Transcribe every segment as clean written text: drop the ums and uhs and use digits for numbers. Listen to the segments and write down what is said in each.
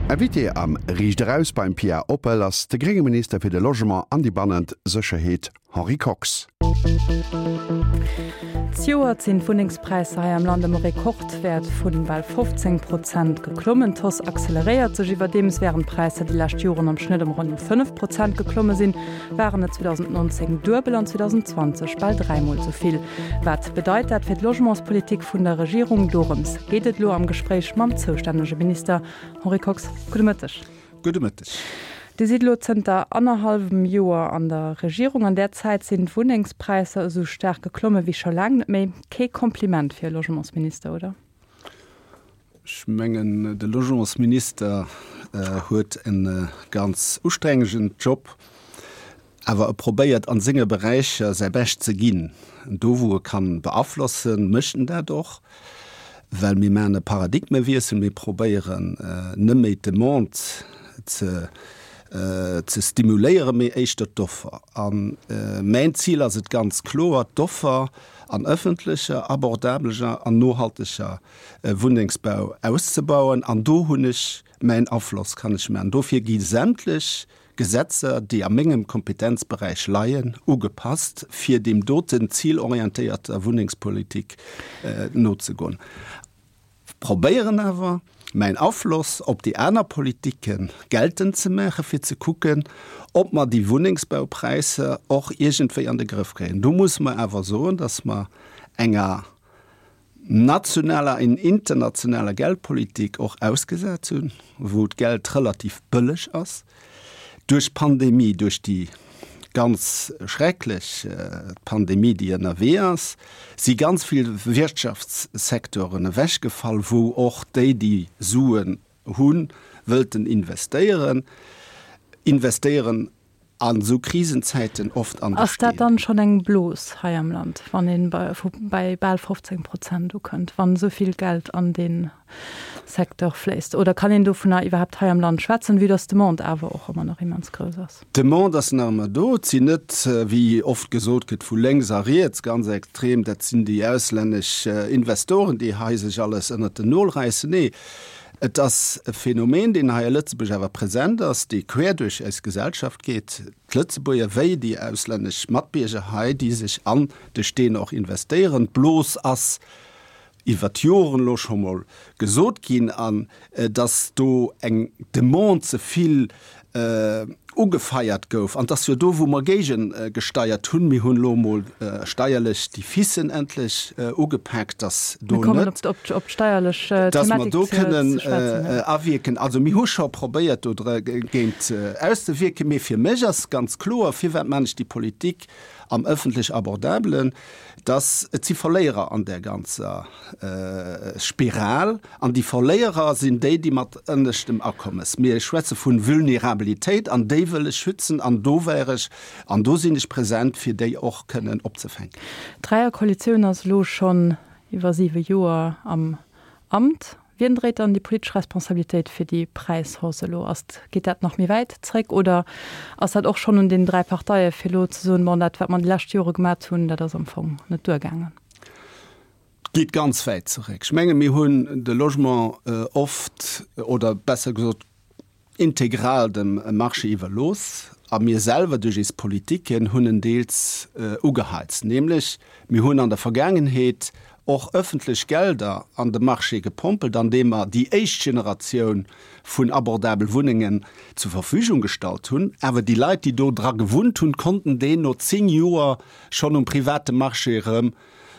Invité am Riicht Eraus beim Pia Oppel ass de grénge Minister fir de Logement an déi bannent Sécherheet Henri Kox. Zejoert sinn d'Wunnengspräisser hei am Land ëm e Rekordwäert vu bal 15 Prozent geklommen. D'Hausse acceleréiert sech iwwerdeems. Wärend d'Präisser déi lescht Joren am Schnëtt ëm ronn 5 Prozent geklomme sinn, waren et 2019 duebel an 2020 bal dräimol esou vill. Wat bedeit dat fir d'Logementspolitik vun der Regierung? Dorëms geet et elo am Gespréich mam zoustännege Minister Henri Kox. Gudde Mëtteg. Gudde Mëtteg. Dir sidd elo zënter annerhallwem Joer an der Regierung. An där Zäit sinn d'Wunnengspräisser esou staark geklomme wéi scho laang net méi. Kee Kompliment fir e Logementsminister, oder? Ech mengen, de Logementsminister huet e ganz ustrengegen Job, awer e probéiert a senge Beräicher säi Bescht ze ginn. Do wou e kann beaflossen, mécht en dat och, well mir maachen e Paradigmewiessel, mir probéieren net méi d'Demande ze ze stimuléieren, mee éischter d'Offer. A mäin Zil ass et ganz kloer, d'Offer an ëffentlecher, abordableger an nohalteger Wunnengsbau auszebauen. An do hunn ech mäin Afloss, kann ech maachen. Dofir gi sämtlech Gesetzer, déi a mengem Kompetenzberäich leien, ugepasst, fir deem doten zilorientéierter Wunnengspolitik nozegoen. Probéieren awer, mäin Afloss op déi aner Politike geltend ze maachen, fir ze kucken, ob mer déi Wunnengsbaupräisser och iergendwéi an de Grëff kréien. Do musse mer awer soen, dass mer enger nationaler an internationaler Geldpolitik och ausgesat hunn, wou d'Geld relativ bëlleg ass. Duerch d'Pandemie, duerch déi ganz schrecklech Pandemie, déi ënnerwee ass, si ganz vill Wirtschaftssecteuren ewechgefall, wou och déi, déi Suen hunn, wëllten investéieren, investéieren an esou Krisenzäiten oft an de Ass dat dann schonn eng Blos hei am Land, wann ee bei bal 15 Prozent ukënnt, wann esou vill Geld an dee Secteur fléisst? Oder kann een dovunner iwwerhaapt hei am Land schwätzen, vue dass d'Demande awer och ëmmer nach immens grouss ass? D'Demande ass nach ëmmer do. Et sinn net, wéi oft gesot gëtt, vu lénks a riets ganz extrem, dat sinn déi auslännesch Investoren, déi hei sech alles ënnert den Nol räissen. Nee, et ass e Phänomen, deen hei a Lëtzebuerg awer present ass, dee quer duerch eis Gesellschaft geet, d'Lëtzebuerger wéi déi auslännesch Matbierger hei, déi sech an de Steen och investéieren. D'Blos ass iwwer d'Joren elo scho mol gesot ginn, an dass do eng Demande ze vill ugefeiert gouf. An 't ass jo do, wou mer géigegesteiert hunn. Mir hunn elo emol steierlech déi Ficen endlech ugepaakt, dass do net, dass mer do kënnen awierken. Also mir hu scho probéiert, do dergéint auszewierken. Mee fir mech ass ganz kloer, Firwat maan ech déi Politik am ëffentlech Abordabelen? Dass et si Verléierer an där ganzer Spiral, an déi Verléierer sinn déi, déi mat ënneschtem Akommes, mir schwätze vu Vulnerabilitéit, an déi wëll ech schützen, an do wär ech, an do sinn ech present, fir déi och kënnen opzefänken. D'Dräierkoalitioun ass elo schonn iwwer siwe Joer am Amt. Wien dréit dann déi politesch Responsabilitéit fir déi Präishausse elo? Ass, geet dat nach méi wäit zréck oder ass dat och schonn un den 3 Parteie fir elo ze soen, bon, dat wat mer déi lescht Jore gemat hunn, dat ass am Fong net duergaangen? Geet ganz wäit zeréck. Ech menge mir hunn de Logement oft, oder besser gesot integral dem Marché iwwerlooss a mir selwer duerch eis Politiken hunn en deels ugeheizt, nämlech mir hunn an der Vergaangenheet och öffentlech Gelder an de Marché gepompelt, andeem mer déi éischt Generatioun vun abordabel Wunnengen zur Verfügung gestallt hunn. Awer déi Leit, déi do dra gewunnt hunn, konnten déi no 10 Joer schonn um private Marché erëm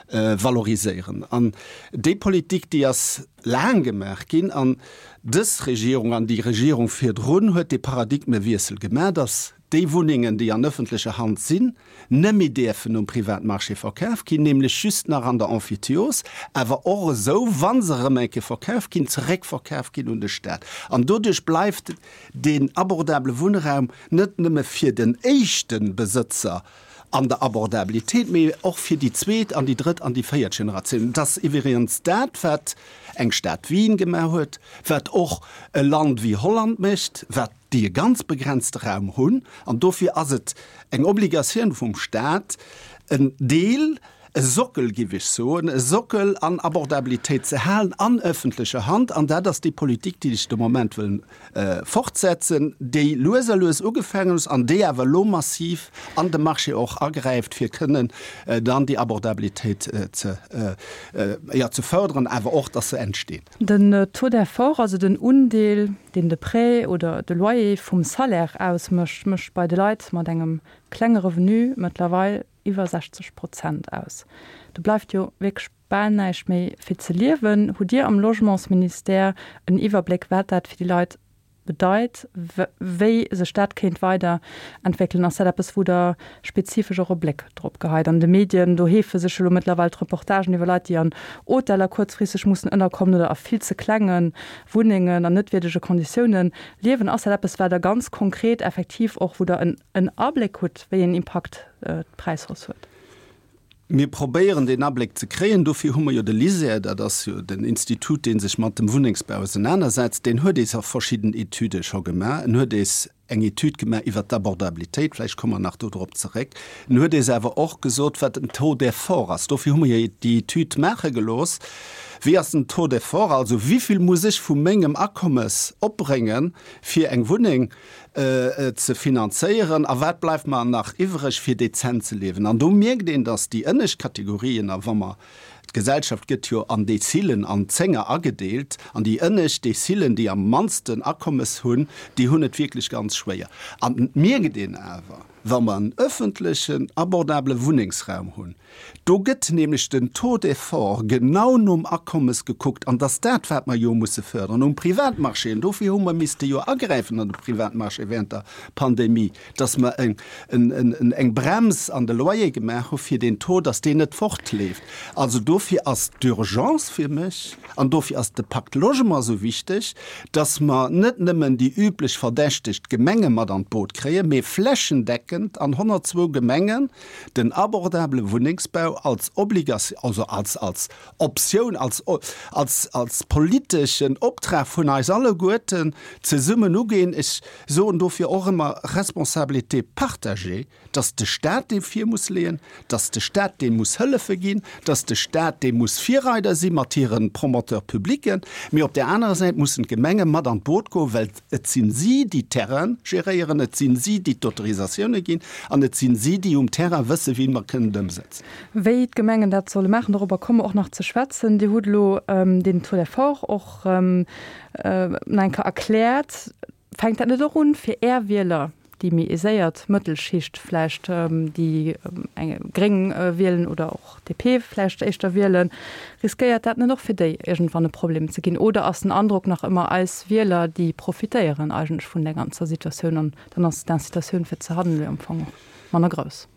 valoriséieren. An déi Politik, déi ass laang gemaach ginn. An dës Regierung an déi Regierung virdrun huet dee Paradigmewiessel gemaach, dass déi Wunnengen, déi an öffentlecher Hand sinn, nëmme däerfen um Privatmarché verkaf ginn, nämlech just nach an der Emphytiose, awer och esou, wa se erëm eng Kéier verkaf ginn, zeréckverkaf ginn un de Stat. An doduerch bleift deen abordabele Wunnraum net nëmme fir den éischte Besëtzer an der Abordabilitéit, mee och fir déi zweet an déi drëtt an déi véiert Generatioun. Et ass iwwregens dat, wat eng Stad Wien gemaach huet, wat och e Land wéi Holland mécht, wat déi e ganz begrenzte Raum hunn. An dofir ass et eng Obligatioun vum Stat, en Deel. e Sockel, géif ech soen, e Sockel an Abordabilitéit ze halen an öffentlecher Hand. An dat ass déi Politik, déi ech de Moment wëll fortsetzen, déi lues a lues ugefaangen ass an déi awer elo massiv an de Marché och agräift, fir kënnen dann déi Abordabilitéit ze, jo, ze fördern, awer och, dass se entsteet. Den Taux d'effort, also den Undeel, deen de Prêt oder de Loyer vum Salaire ausmécht, mécht bei de Leit mat engem klenge Revenu mëttlerweil iwwer 60 Prozent aus. Do bleift jo wierklech bal näischt méi fir ze liewen. Hutt Dir am Logementsministère en Iwwerbléck, wat dat fir déi Leit bedeit, wéi sech dat kéint weider entwéckelen? Ass dat eppes, wou Der spezifesch och e Bléck drop geheit? An de Medien, do heefe sech elo mëttlerweil d'Reportagen iwwer Leit, déi an Hoteller kuerzfristeg mussen ënnerkommen oder a vill ze klenge Wunnengen an net wierdege Konditiounen liewen. Ass dat eppes, wat Der ganz konkret effektiv och, wou Der en Abléck hutt, wéi een Impakt d'Präishausse huet? Mir probéieren deen Abléck ze kréien. Dofir hu mer jo de LISER, dat ass jo den Institut, dee sech mat dem Wunnengsbau ausenanersetzt. Deen huet eis och verschidden Etüde scho gemaach. En huet eis eng Etüd gemaach iwwert d'Abordabilitéit, vläicht komme mer nach dodrop zeréck. En huet eis awer och gesot, wat den Taux d'effort ass. Dofir hu mer jo déi Etüd maache gelooss. Wéi ass den Taux d'effort, also wéivill muss ech vu mengem Akommes opbréngen, fir eng Wunneng ze finanzéieren a wat bleift mer nach iwwreg fir dezent ze liewen. An do mierkt een, datt déi ënnescht Kategorien, a wa mer, d'Gesellschaft gëtt jo an Dezilen, an Zénger agedeelt, an déi ënnescht Dezilen, déi am mannsten Akommes hunn, déi hunn et wierklech ganz schwéier. An et mierkt een awer, wa mer en öffentlechen, abordabele Wunnengsraum hunn, Do gëtt nämlech den Taux d'effort genau nom Akommes gekuckt, an dass dat, wat mer jo musse fördern um Privatmarché, an dofir hu mer misste jo agräifen an de Privatmarché während der Pandemie, dass mer eng Brems an de Loyer gemaach hu fir deen Taux, dass deen net fortleeft. Also dofir ass d'Urgence fir mech, an dofir ass de Pacte Logement esou wichteg, dass mer net nëmmen déi üblech Verdächteg, d'Gemenge mat an d'Boot kréien, mee flächendeckend an 102 Gemengen, den abordabele Wunnengsbau als Obligatioun, also als, als Optioun, als, als, als politeschen Optrag vun eis alleguerten zesummen ugeen. Ech soen dofir och ëmmer Responsabilité partagée, dass de Stat dee vir muss leeën, dass de Stat deem muss Hëllefe ginn, dass de Stat dee muss Virreider si mat hire Promoteurs publics, mee op där anerer Säit mussen d'Gemenge mat an d'Boot goen, well Et sinn si, déi d'Terraine geréieren, et sinn si, déi d'Autorisatioune ginn an et sinn si, déi um Terrain wëssen, wéi mer kënnen et ëmsetzen. Wéi d'Gemengen dat solle maachen, dorobber komme mer och nach ze schwätzen. Dir hutt elo deen Taux d'effort och nach eng Kéier erkläert. Fänkt dat net och un, fir Är Wieler déi méi aiséiert Mëttelschicht vläicht, déi eng gréng wielen oder och DP vläicht éischter wielen, riskéiert dat net och fir déi iergendwann e Problem ze ginn? Oder ass den Androck nach ëmmer, eis Wieler, déi profitéieren eigentlech vun där ganzer Situatioun an dann ass d'Incitatioun fir ze handelen jo am Fong och manner grouss?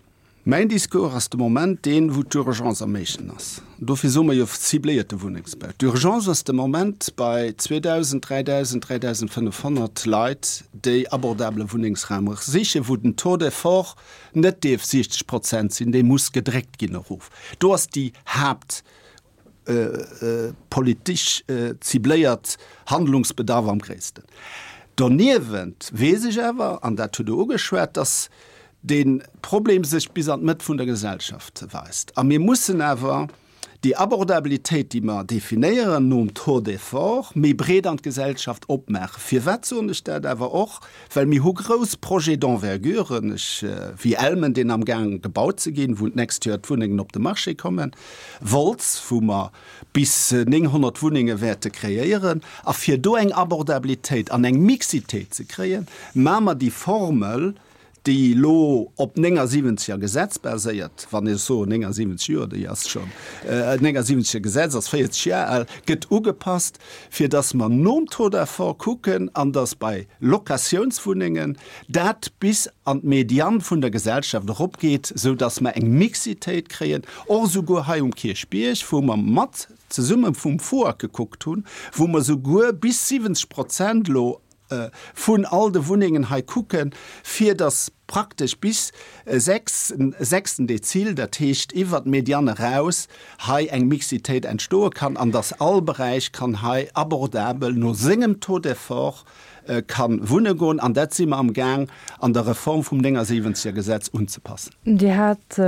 Mäin Discours ass de Moment deen, wou d'Urgence am éischten ass. Dofir soe mer jo cibléierte Wunnengsbau. D'Urgence ass de Moment bei 2.000, 3.000, 3.500 Leit, déi abordabele Wunnengsraum sichen, wou den Taux d'effort net dierf 60 Prozent sinn, dee muss gedréckt ginn erof. Do ass déi Haapt politesch cibléiert Handlungsbedarf am gréissten. Doniewent weess ech awer, an dat hutt Der ugeschwat, dass dee Problem sech bis an d'Mëtt vun der Gesellschaft weist. A mir mussen awer déi Abordabilitéit, déi mer definéieren nom Taux d'effort, méi breet an d'Gesellschaft opmaachen. Firwat soen ech dat awer och? Well mir hu grouss Projets d'envergure, ech, wéi Elmen, deen amgaang gebaut ze ginn, wou d'nächst Joer d'Wunnengen op de Marché kommen, Wolz, wou mer bis 900 Wunnenge wäerte kreéieren. A fir do eng Abordabilitéit an eng Mixitéit ze kréien, maache mer déi Formel, déi elo op 79er Gesetz baséiert, wann ech soen 79 Joer, déi ass schonn, 79er Gesetz ass 40 Joer al, gëtt ugepasst, fir datt mer nom Taux d'effort kucken an datt bei Locatiounswunnengen dat bis an d'Median vun der Gesellschaft eropgeet, sou datt mer eng Mixitéit kréien, och esouguer hei um Kierchbierg, wou mer mat zesumme vum FUAG gekuckt hunn, wou mer esouguer bis 70 Prozent elo vun all de Wunnengen hei kucken, fir datt. praktesch bis 6, sechsten Dezil, dat heescht iwwert d'Mediane eraus, hei eng Mixitéit entstoe kann an dass all Beräich kann hei abordabel no sengem Taux d'effort ka wunne goen. An dat si mer am Gaang an der Reform vum 79 er Gesetz unzepassen. Dir hat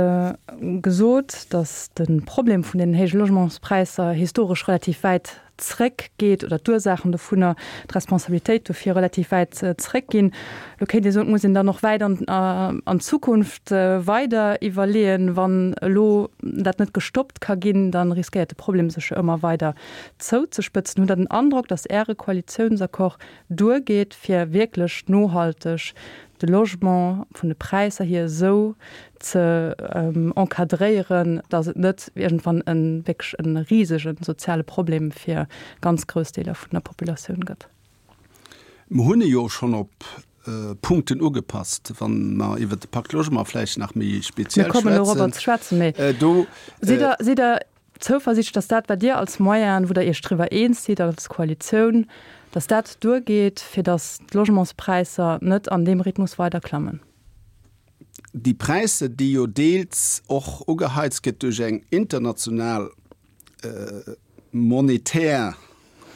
gesot, dass de Problem vun den héije Logementspräisser historesch relativ wäit zréck geet oder d'Ursaachen dovunner, d'Responsabilitéit dofir relativ wäit zréck ginn. Elo kéint ee soen, et muss een dann och wäit an an d'Zukunft weider iwwerleeën. Wann elo dat net gestoppt ka ginn, da riskéiert de Problem sech jo ëmmer weider zouzespëtzen. Hutt Der den Androck, datt Äre Koalitiounsaccord duergeet, fir wierklech nohalteg de Logement vun de Präisser hier esou ze encadréieren, datt et net iergendwann e wierklech e risege soziale Problem fir ganz grouss Deeler vun der Populatioun gëtt? Mer hunn e jo schonn op Punkten ugepasst, wa mer iwwert de Pacte Logement vläicht nach méi speziell schwätzen. Mir kommen dorobber ze schwätzen, mee sidd Der, sidd Der Zouversiichtlech, dass dat, wat Dir als Moyenen, wou Der Iech driwwer eens sidd als Koalitioun, dass dat duergeet, fir dass d'Logementspräisser net an deem Rhythmus weider klammen? Déi Präisser, déi jo deels och ugeheizt gëtt duerch eng international monetär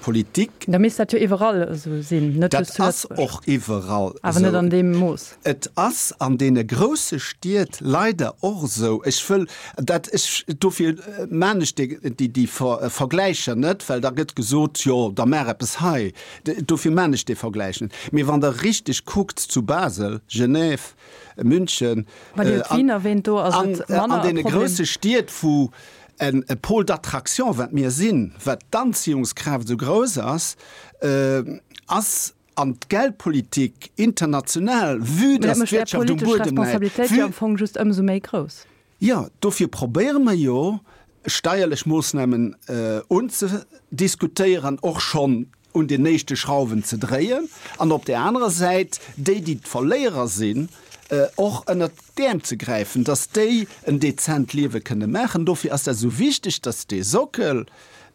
Politik. Da misst dat jo iwwerall esou sinn, net just zu Lëtzebuerg. Dat ass och iwwerall esou. Awer net an deem Mooss. Et ass an deene grousse Stied leider och esou. Ech wëll dat, ech, dofir maan ech déi, déi Vergläicher net, well da gëtt gesot, jo da maach eppes hei. Dofir maan ech dee Vergläich net. Mee wann Der richteg kuckt zu Basel, Genève, München, an deene grousse Stied, wou e Pôle d'attraction, wat mir sinn, wat d'Anziehungskraaft esou grouss ass, ass an d'Geldpolitik international, vue dass d'Wirtschaft um Buedem läit, vue. Jo, dofir probéiere mer jo, steierlech Moossnamen unzediskutéieren, och schonn un den éischte Schrauwen ze dréien an op där anerer Säit déi, déi d'Verléierer sinn, och ënnert d'Äerm ze gräifen, dass déi en dezent Liewe kënne maachen. Dofir ass dat esou wichteg, dass dee Sockel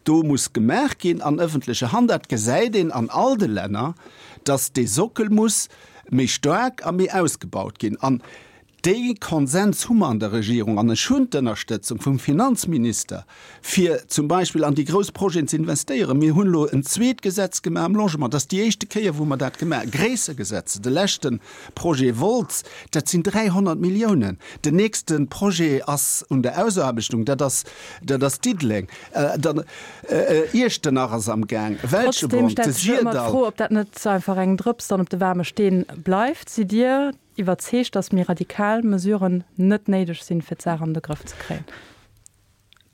do muss gemaach ginn an ëffentlecher Hand. Dat gesäit een an all de Länner, dass dee Sockel muss méi staark a méi ausgebaut ginn. An Dee Konsens hu mer an der Regierung, an ech hunn d'Ënnerstëtzung vum Finanzminister, fir zum Beispill an déi grouss Projeten ze investéieren. Mir hunn elo en zweet Gesetz gemaach am Logement. Dat ass déi éischte Kéier, wou mer dat gemaach, gréisser Gesetze. De leschte Projet Wolz, dat sinn 300 Milliounen. Den nächste Projet ass un der Ausaarbechtung, dat ass, dat ass Diddeleng. Dann Iechternach ass am Gaang, Trotzdem Welschebronn, de stellt sech ëmmer Syrdall. d'Fro, ob dat net einfach eng Drëps dann op de waarme Steen bleift. Sidd Dir Iwwerzeegt, datt méi radikal Mesuren net néideg sinn, fir d'Saach an de Grëff ze kréien.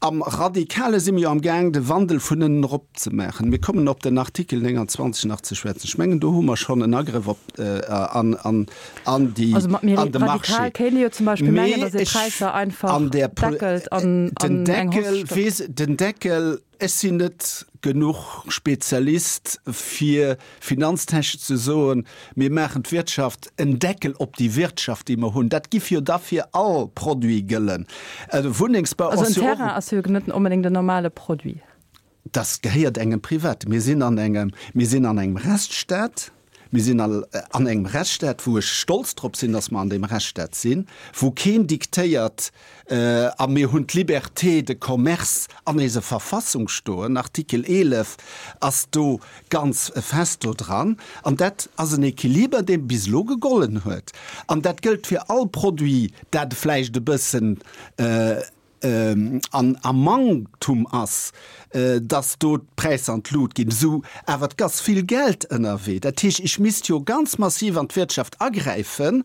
Am Radikale si mir jo am Gaang, de Wandel vun ënnen erop ze maachen. Mir kommen op den Artikel 29 nach ze schwätzen. Ech mengen, do hu mer schonn en Agrëff op an an an déi Also mat méi an de Marché. radikal kéint ee jo zum Beispill mengen, Mee datt ee ech Präisser einfach an där Pol deckelt an den an eng Hausse Deckel stoppt. weess den Deckel Ech sinn net genuch Spezialist fir finanztechnesch ze soen, mir maachen d'Wirtschaft en Deckel op déi Wirtschaft déi mer hunn. Dat giff jo da fir all Produit gëllen. Wunnengsbau Also ass en jo och. Terrain ass jo net onbedéngt en normale Produit. Dat gehéiert engem Privaten. Mir sinn an engem, mir sinn an engem Rechtsstaat. Mir sinn an engem Rechtsstaat, wou ech stolz drop sinn, dass mer an deem Rechtsstaat sinn, wou keen diktéiert, a mir hunn d'Liberté de commerce an eiser Verfassung stoen, Artikel 11 ass do ganz fest do dran. An dat ass en Equiliber, dee bis elo gegollen huet. An dat gëllt fir all Produit, dat vläicht e bëssen, an am Manktum ass, dass do d'Präisser an d'Lut ginn, esou awer et ass vill Geld ënnerwee. Dat heescht, ech misst jo ganz massiv an d'Wirtschaft agräifen,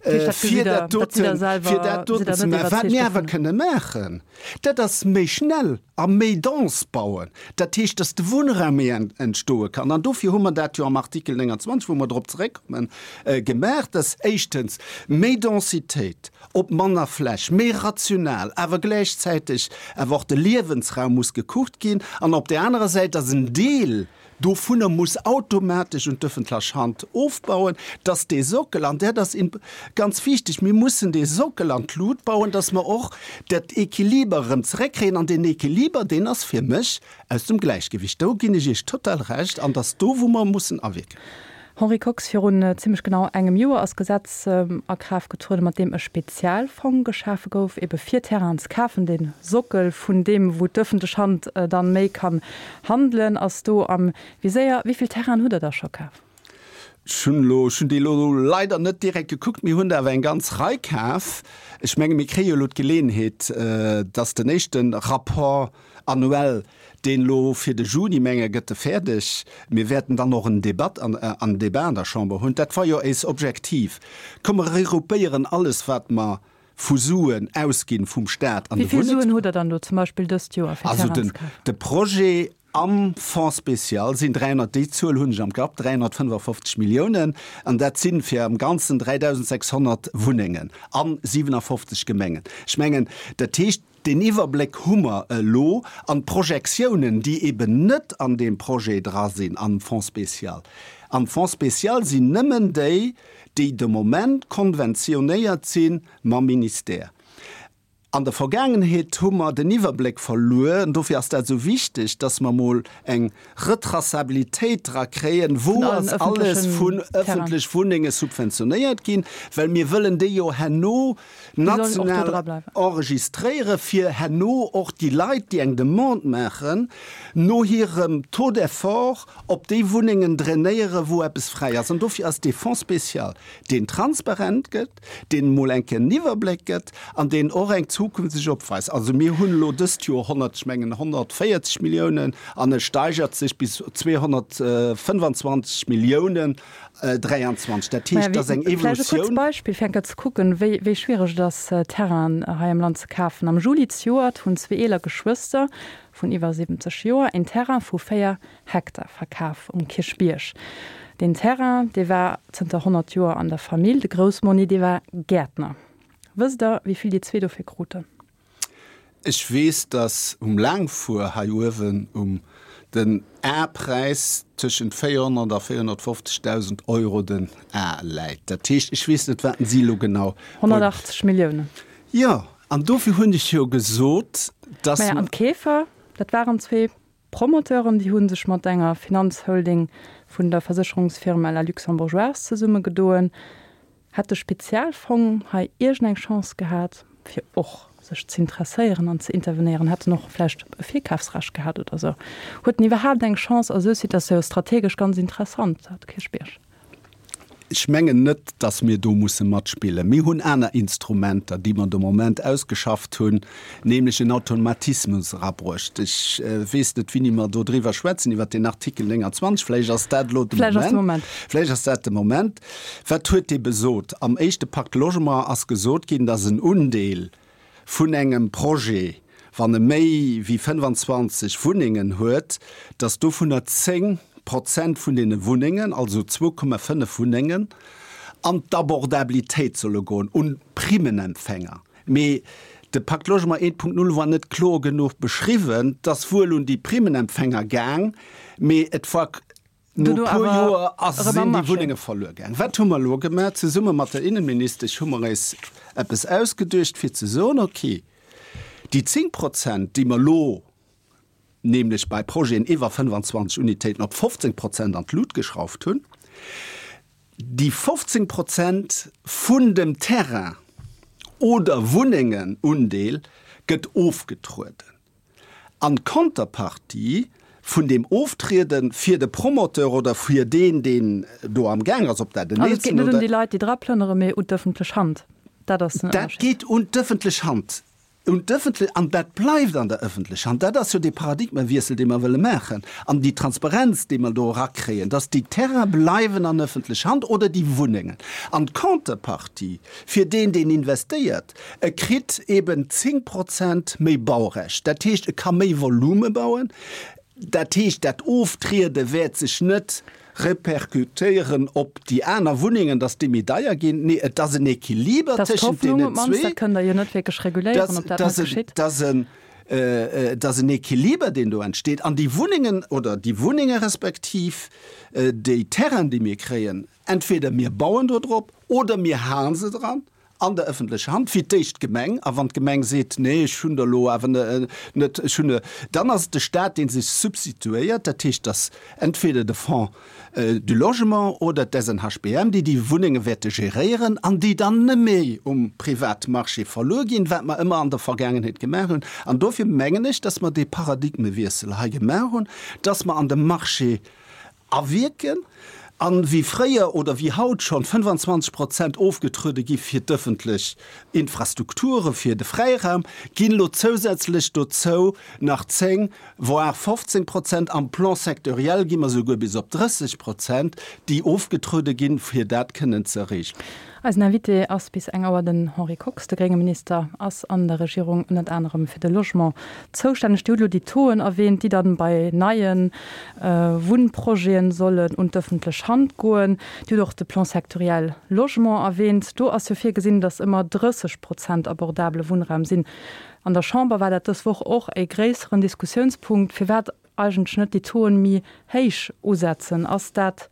fir dat doten, fir dat doten ze maachen. Wat mir awer kënne maachen, dat ass méi schnell a méi dense bauen. Dat heescht, dass de Wunnraum méi entstoe kann. An dofir hu mer dat jo am Artikel 29, wou mer drop zeréckkommen, gemaach, dass éischtens méi Densitéit, op manner Fläch, méi rational, awer gläichzäiteg awer och de Liewensraum muss gekuckt ginn an op där anerer Säit, dass en Deel dovunner muss automatesch un d'öffentlech Hand ofbauen, dass dee Sockel, an dat ass ganz wichteg, mir mussen dee Sockel an d'Lut bauen, dass mer och dat Equiliber erëm zeréckkréien an deen Equiliber, deen ass fir mech aus dem Gläichgewicht. Do ginn ech Iech total Recht an dass do, wou mer mussen awierken. Henri Kox, Virun zimlech genau engem Joer ass d'Gesetz a Kraaft getrueden, mat deem e Spezialfong geschafe gouf, ebe fir Terrainen ze kafen. De Sockel vun deem, wou d'ëffentlech Hand dann méi kann handelen, ass do am Viséier. Wéi vill Terrainen hutt Der da scho kaf? Ech hunn elo, ech hunn déi elo leider net direkt gekuckt. Mir hunn der awer eng ganz Rei kaf. Ech menge mir kréie jo elo d'Geleeënheet, dass den éischte Rapport annuel, deen elo fir de Juni, menge gëtt e fäerdeg, mir wäerten dann och en Debat an, en Débat an der Chamber hunn. Dat war jo éis Objektiv. Komm mer regroupéieren alles wat mer vu Suen ausginn vum Staat an de Wéi vill Suen hutt Der dann elo zum Beispill dëst Joer fir Also Terrainen den, ze kafen? de Projet am Fonds spécial sinn 300, déi Zuel hunn ech am Kapp, 355 Milliounen, an dat si fir am Ganzen 3.600 Wunnengen a 57 Gemengen. Ech mengen, dat heescht, deen Iwwerbléck hu mer elo an d'Projektiounen, déi eben net an deem Projet dra sinn am Fonds spécial. Am Fonds spécial sinn nëmmen déi, déi de Moment konventionéiert si mam Ministère. An der Vergaangenheet hu mer den Iwwerbléck verluer, an dofir ass dat esou wichteg, dass mer emol eng Retraçabilitéit dra kréien, wou ass alles vun ëffentlech Wunnenge subventionéiert ginn, well mir wëllen déi jo herno national enregistréiere fir herno och déi Leit, déi eng Demande maachen, no hirem Taux d'effort op déi Wunnengen drainéiere wou eppes fräi ass. An dofir ass dee Fonds spécial, deen transparent gëtt, deen emol eng Kéier en Iwwerbléck gëtt an deen och eng Zukunft sech opweist. Also mir hunn elo dëst Joer 100, ech mengen 140 Milliounen an e steigert sech bis 225 Milliounen 23. Dat heescht, dat ass eng Evolutioun. Vläicht e kuerzt Beispill, fir eng Kéier ze kucken, wéi, wéi schwiereg et ass, Terrainen hei am Land ze kafen. Am Juli zejoert hunn zwee eeler Geschwëster vun iwwer 70 Joer een Terrain vu 4 Hektar verkaf um Kierchbierg. Deen Terrain, dee war zënter 100 Joer an der Famill. De Groussmonni, dee war Gäertner. Wësst Der, wéi vill déi zwee dofir kruten? Ech weess, dass um Laangfuer hei uewen um den Ar-Präis tëschent 400 a 450.000 Euro den Ar läit. Dat heescht, ech weess net, wat si elo genau. 180 Milliounen. Jo, an dofir hunn ech jo gesot, dass. Maja, an d'Keefer, dat waren zwee Promoteuren, déi hu sech mat enger Finanzholding vun der Versécherungsfirma La Luxembourgeoise zesummegedoen. Hätt de Spezialfong hei iergendeng Chance gehat, fir och sech z'interesséieren an ze intervenéieren? Hätt en och vläicht e Virkafsrecht gehat oder esou? Huet en iwwerhaapt eng Chance a sou Situatioun? Strategesch ganz interessant, dat Kierchbierg. Ech mengen net, dass mir do musse matspillen. Mir hunn aner Instrumenter, déi mer de Moment ausgeschafft hunn, nämlech en Automatismus erabruecht. Ech weess net, wéini mer do driwwer schwätzen, iwwert deen Artikel 29. Vläicht ass dat elo de Moment. Vläicht ass dat de Moment. Wat huet dee besot? Am éischte Pacte Logement ass gesot ginn, dass en Undeel vun engem Projet, wann e méi wéi 25 Wunnengen huet, datt dovunner 10 Prozent vun deene Wunnengen, also 2,5 Wunnengen, an d'Abordabilitéit solle goen, un d'Primmenempfänger. Mee de Pacte Logement 1.0 war net kloer genuch beschriwwen. Et ass wuel un déi Primmenempfänger gaang, mee et war No e puer Joer ass sinn déi Wunnenge verluer gaang. Wat hu mer elo gemaach? Zesumme mat der Innenministesch hu mer eis eppes ausgeduecht, fir ze soen, okay, déi 10 Prozent, déi mer elo nämlech bei Projeten iwwer 25 Unitéiten op 15 Prozent an d'Lut geschrauft hunn, déi 15 Prozent vun dem Terrain oder Wunnengenundeel gëtt ofgetrueden. An d'Contrepartie vun deem Oftriede fir de Promoteur oder fir deen, deen do am Gaang ass, ob dat en Also et geet net un déi Leit, déi dra plënnere, mee un d'ëffentlech Hand. Dat ass den Dat Ënnerscheed. geet un d'ëffentlech Hand. Un d'ëffentlech, an dat bleift an der ëffentlech Hand. Dat ass jo dee Paradigmewiessel, dee mer wëlle maachen an déi Transparenz, déi mer do erakréien, dass déi Terraine bleiwen an ëffentlech Hand oder déi Wunnengen. An d'Contrepartie fir deen, deen investéiert, E kritt eben 10 Prozent méi Baurecht, dat heescht, e ka méi Volume bauen. Dat heescht, dat Oftriede wäert sech net repercutéieren op déi aner Wunnengen, datt déi méi deier ginn. Nee, et ass en Equiliber tëschent deenen zwee. Dat kënnt Der jo net wierklech reguléieren, ob dat net geschitt. Et ass en Equiliber, deen do entsteet. An déi Wunnengen oder déi Wunnenge respektiv déi Terrainen, déi mir kréien, entweder mir bauen do drop oder mir hale se dran. An der ëffentlecher Hand, fir d'éischt d'Gemeng, a wann d'Gemeng seet, nee ech hunn der elo awer net, ech hunn, dann ass et de Stat, dee sech substituéiert. Dat heescht, dass entweder de Fonds du Logement oder d'SNHBM, déi déi Wunnenge wäerte geréieren an déi dann net méi um Privatmarché verluer ginn, wat mer ëmmer an der Vergaangenheet gemaach hunn. An dofir mengen ech, dass mer dee Paradigmewiessel hei gemaach hunn, dass mer an de Marché awierken an wéi fréier oder wéi haut schonn 25 Prozent ofgetruede gi fir d'ëffentlech Infrastrukture fir de Fräiraum, ginn elo zousätzlech dozou nach 10, voire 15 Prozent, am Plan sectoriel gi mer souguer bis op 30 Prozent, déi ofgetruede ginn, fir dat kënnen ze erreechen. Eisen Invité ass bis eng Auer den Henri Kox. De grénge Minister ass an der Regierung ënnert anerem fir de Logement zoustänneg. Dir hutt elo déi Tauxen erwähnt, déi dann bei neie Wunnprojeten sollen un d'ëffentlech Hand goen. Dir hutt och de Plan sectoriel Logement erwähnt. Do ass jo virgesinn, datt ëmmer 30 Prozent abordabele Wunnraum sinn. An der Chamber war dat dës Woch och e gréisseren Diskussiounspunkt. Firwat eigentlech net déi Tauxen méi héich usetzen? Ass dat,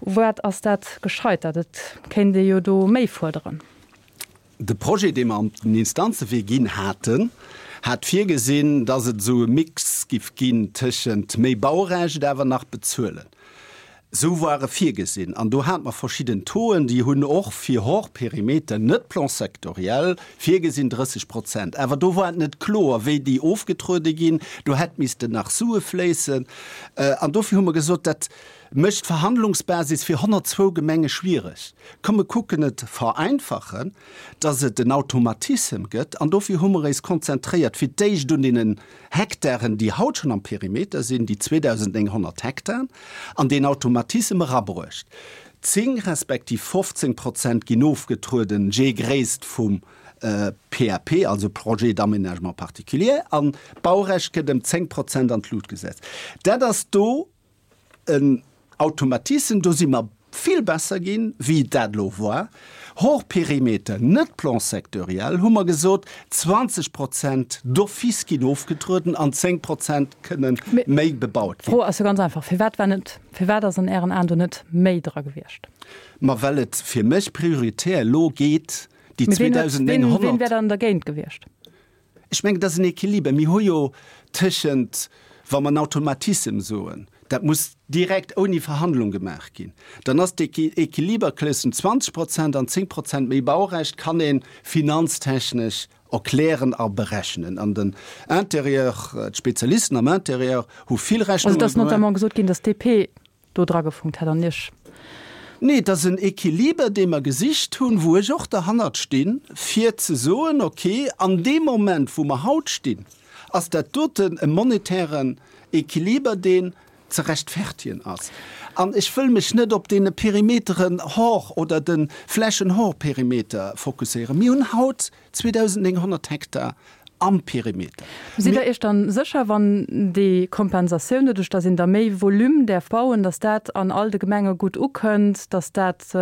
u wat ass dat gescheitert? Et kéint ee jo do méi fuerderen. De Projet, dee mer an den Instanzewee ginn haten, hat virgesinn, dass et esou e Mix giff ginn tëschent méi Baurecht awer nach bezuelen. Esou war e virgesinn. An do hate mer verschidden Tauxen, déi hunn och fir hors périmètre, net Plan sectoriel, virgesinn 30 Prozent. Awer do war et net kloer, wéi déi ofgetruede ginn. Do hätt missten nach Sue fléissen. An dofir hu mer gesot, dat mécht d'Verhandlungsbasis fir 102 Gemenge schwiereg. Komm mer kucken et vereinfachen, dass et en Automatissem gëtt. An dofir hu mer éis konzentréiert fir d'éischt un deenen Hektaren, déi haut schonn am Perimeter sinn, déi 2.900 Hektaren, an deen Automatissem erabruecht. 10 respektiv 15 Prozent ginn ofgetrueden, jee Gréisst vum PAP, also Projet d'aménagement particulier, an d'Baurecht gëtt ëm 10 Prozent an d'Lut gesetzt. Dat ass do en Automatissem, do si mer vill besser ginn, wéi dat elo war. Hors périmètre, net Plan sectoriel, hu mer gesot, 20 Prozent d'office ginn ofgetrueden an 10 Prozent kënne méi bebaut ginn. D'Fro ass jo ganz einfach, Firwat war net, firwat ass an Ären Aen do net méi dra gewiescht? Ma well et fir mech prioritär elo geet, déi 2.900. Ween wär dann dergéint gewiescht? Ech mengen, et ass en Équiliber. Mir hu jo tëschent, wa mer en Automatissem soen, dat muss direkt ouni Verhandlung gemaach ginn, dann ass d'Équiliber tëschent 20 Prozent an 10 Prozent méi Baurecht kann ee finanztechnesch erklären a berechnen. An den Intérieur, d'Spezialisten am Intérieur hu vill Rechnunge gemaach. Also et ass notamment gesot ginn, datt d'DP do dra gefunkt hätt an Iech. Nee, et ass en Equiliber, dee mer gesicht hunn, wou ech och derhannert stinn, fir ze soen, okay, an deem Moment, wou mer haut stinn, ass dat doten e monetären Equiliber, deen ze rechtfertigen ass. An ech wëll mech net op deene Perimeteren hors oder de Flächen hors Perimeter fokusséieren. Mir hunn haut 2.900 Hektar am Perimeter. Sidd Der Iech dann sécher, wann déi Kompensatioun, doduerch datt een da méi Volume däerf bauen, datt dat an all de Gemenge gutt ukënnt, datt dat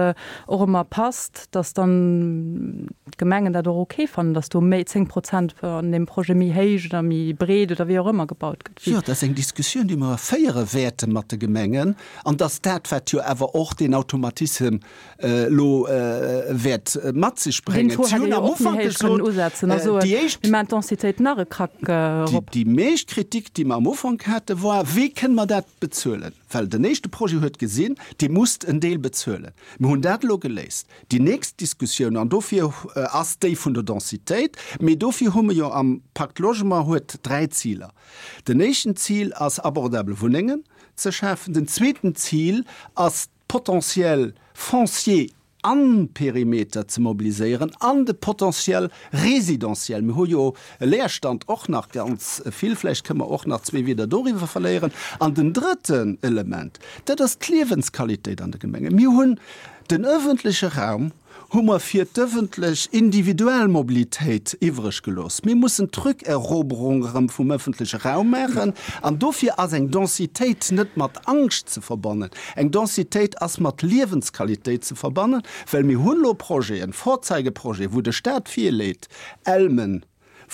och ëmmer passt, datt dann d'Gemengen dat och ok fannen, datt do méi 10 Prozent an deem Projet méi héich oder méi breet oder wéi och ëmmer gebaut gëtt? Jo, dat ass eng Diskussioun, déi mer féiere wäerte mat de Gemengen. An datt dat, wat jo awer och deen Automatissem elo wäert mat sech bréngen. Si hunn am Ufank gesot, déi éischt, déi meescht Kritik, déi mer am Ufank haten, war, Wéi kënne mer dat bezuelen? Well den éischte Projet huet gesinn, Dir musst en Deel bezuelen. Mir hunn dat elo geléist. Déi nächst Diskussioun, an dofir ass déi vun der Densitéit, mee dofir hu mer jo am Pacte Logement huet dräi Ziler. Den éischten Zil ass, abordabel Wunnengen ze schafen. Den zweeten Zil ass, Potentiel foncier am Perimeter ze mobiliséieren an de Potentiel résidentiel. Mir hu jo e Leerstand och nach ganz vill, vläicht kënne mer och nach zwee Wieder doriwwer verléieren. An den drëtten Element, dat ass d'Liewensqualitéit an de Gemengen. Mir hunn den öffentleche Raum, hu mer fir d'ëffentlech individuell Mobilitéit iwwreg gelooss. Mir mussen d'Rückeroberung erëm vum ëffentleche Raum maachen an dofir ass eng Densitéit net mat Angscht ze verbannen. Eng Densitéit ass mat Liewensqualitéit ze verbannen, well mir hunn elo Projeten, Vorzeigeprojeten, wou de Stat virleet, Elmen.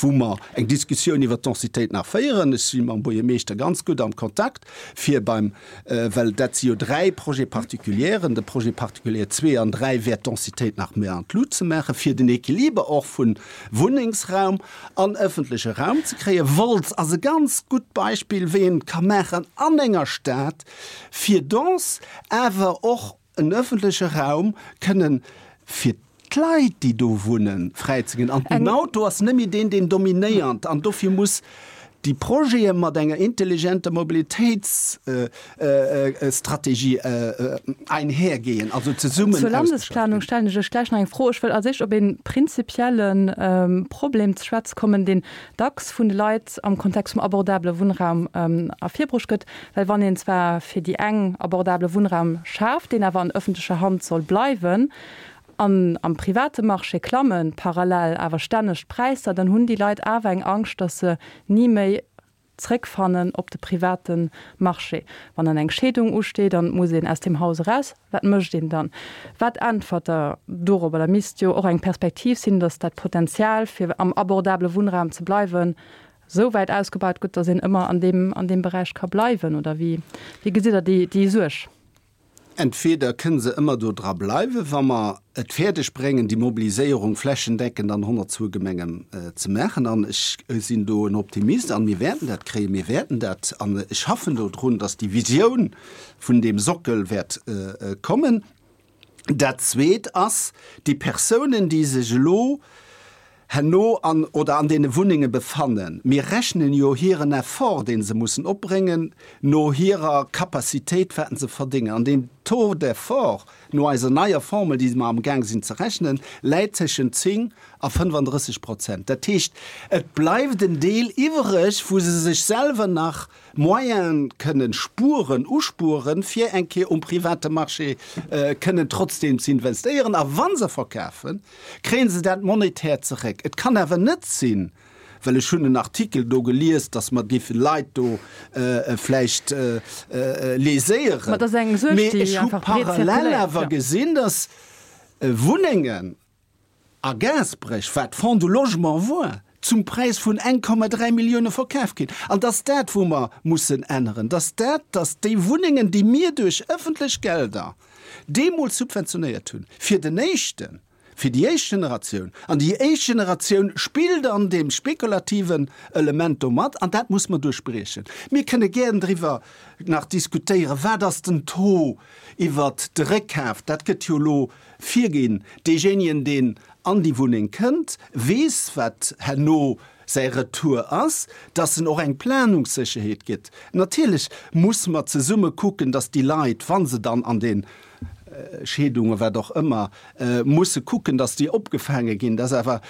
Wou mer eng Diskussioun iwwert d'Densitéit nach féieren. Ech si mam Buergermeeschter ganz gutt am Kontakt, fir beim, well dat si jo 3 Projet-particulieren, de Projet particulier 2 an 3 wäert d'Densitéit nach méi an d'Lut ze maachen, fir den Equiliber och vu Wunnengsraum an ëffentleche Raum ze kréien. Wolz ass e ganz gutt Beispill, wéi een et ka maachen an enger Stad, fir dense, awer och en ëffentleche Raum kënnen fir d'Leit, déi do wunnen, fräizeginn. An den Auto ass net méi deen, deen dominéiert. An dofir muss déi Projete mat enger intelligenter Mobilitéitsstrategie einhergehen, also zesummen Zur Landesplanung stellen ech lech gläich nach eng Fro. Ech wëll als éischt op ee prinzipielle Problem ze schwätze kommen, deen dacks vun de Leit am Kontext vum abordabele Wunnraum ervirbruecht gëtt. Well wann een zwar fir déi eng abordabele Wunnraum schaaft, deen awer an ëffentlecher Hand soll bleiwen, an am private Marché klamme parallel awer stänneg d'Präisser, dann hunn déi Leit awer eng Angscht, datt se ni méi zréckfannen op de private Marché. Wann dann eng Scheedung usteet an et muss een aus deem Haus eraus, wat mécht een dann? Wat äntwert Der dorobber? Da misst jo och eng Perspektiv sinn, datt dat Potenzial fir am abordabele Wunnraum ze bleiwen, esou wäit ausgebaut gëtt, datt een ëmmer an deem, an deem Beräich ka bleiwen, oder wéi, wéi gesitt Der déi, déi Suerg? Entweder kënne se ëmmer do dra bleiwen, wa mer et fäerdeg bréngen, déi Mobiliséierung flächendeckend an 102 Gemengen ze maachen, an ech sinn do en Optimist, an mir wäerten dat kréien, mir wäerten dat, an ech schaffen do drun, datt déi Visioun vun deem Sockel wäert kommen. Dat Zweet ass, déi Persounen, déi sech elo herno an oder an deene Wunnenge befannen, mir rechnen jo hiren Effort, dee se mussen opbréngen, no hirer Capacitéit, wat se verdéngen. An deen Taux d'effort, no eiser neier Formel, déi mer amgaang sinn ze rechnen, läit tëschent 10 a 35 Prozent. Dat heescht, et bleift en Deel iwwereg, wou se sech selwer nach Moyene kënnen spueren, uspueren, fir eng Kéier um private Marché kënnen trotzdeem ze investéieren. A wa se verkafen, kréie se dat monetär zeréck. Et kann awer net sinn, well ech hunn en Artikel do gelies, datt mer géife Leit do vläicht léséieren, mee ech hu parallel awer gesinn, datt Wunnengen, A Gaasperech war d'Fonds du Logement war zum Präis vun 1,3 Millioune verkaf ginn. An dass dat, wou mer mussen änneren, dass dat, dass déi Wunnengen, déi mir duerch ëffentlech Gelder deemools subventionéiert hunn, fir den éischten, fir déi éischt Generatioun, an déi éischt Generatioun spillt an deem spekulativen Element do mat, an dat muss mer duerchbriechen. Mir kënne gären driwwer nach diskutéieren, wat ass den Taux iwwert de Réckkaf, dat gëtt jo elo Virginn. Deejéinegen, deen an déi Wunneng kënnt, weess, wat herno säi Retour ass, dass en och eng Planungssécherheet gëtt. Natierlech muss mer zesumme kucken, dass déi Leit, wa se dann an de Scheedungen, wat och ëmmer, musse kucken, dass déi opgefaange ginn. Dass awer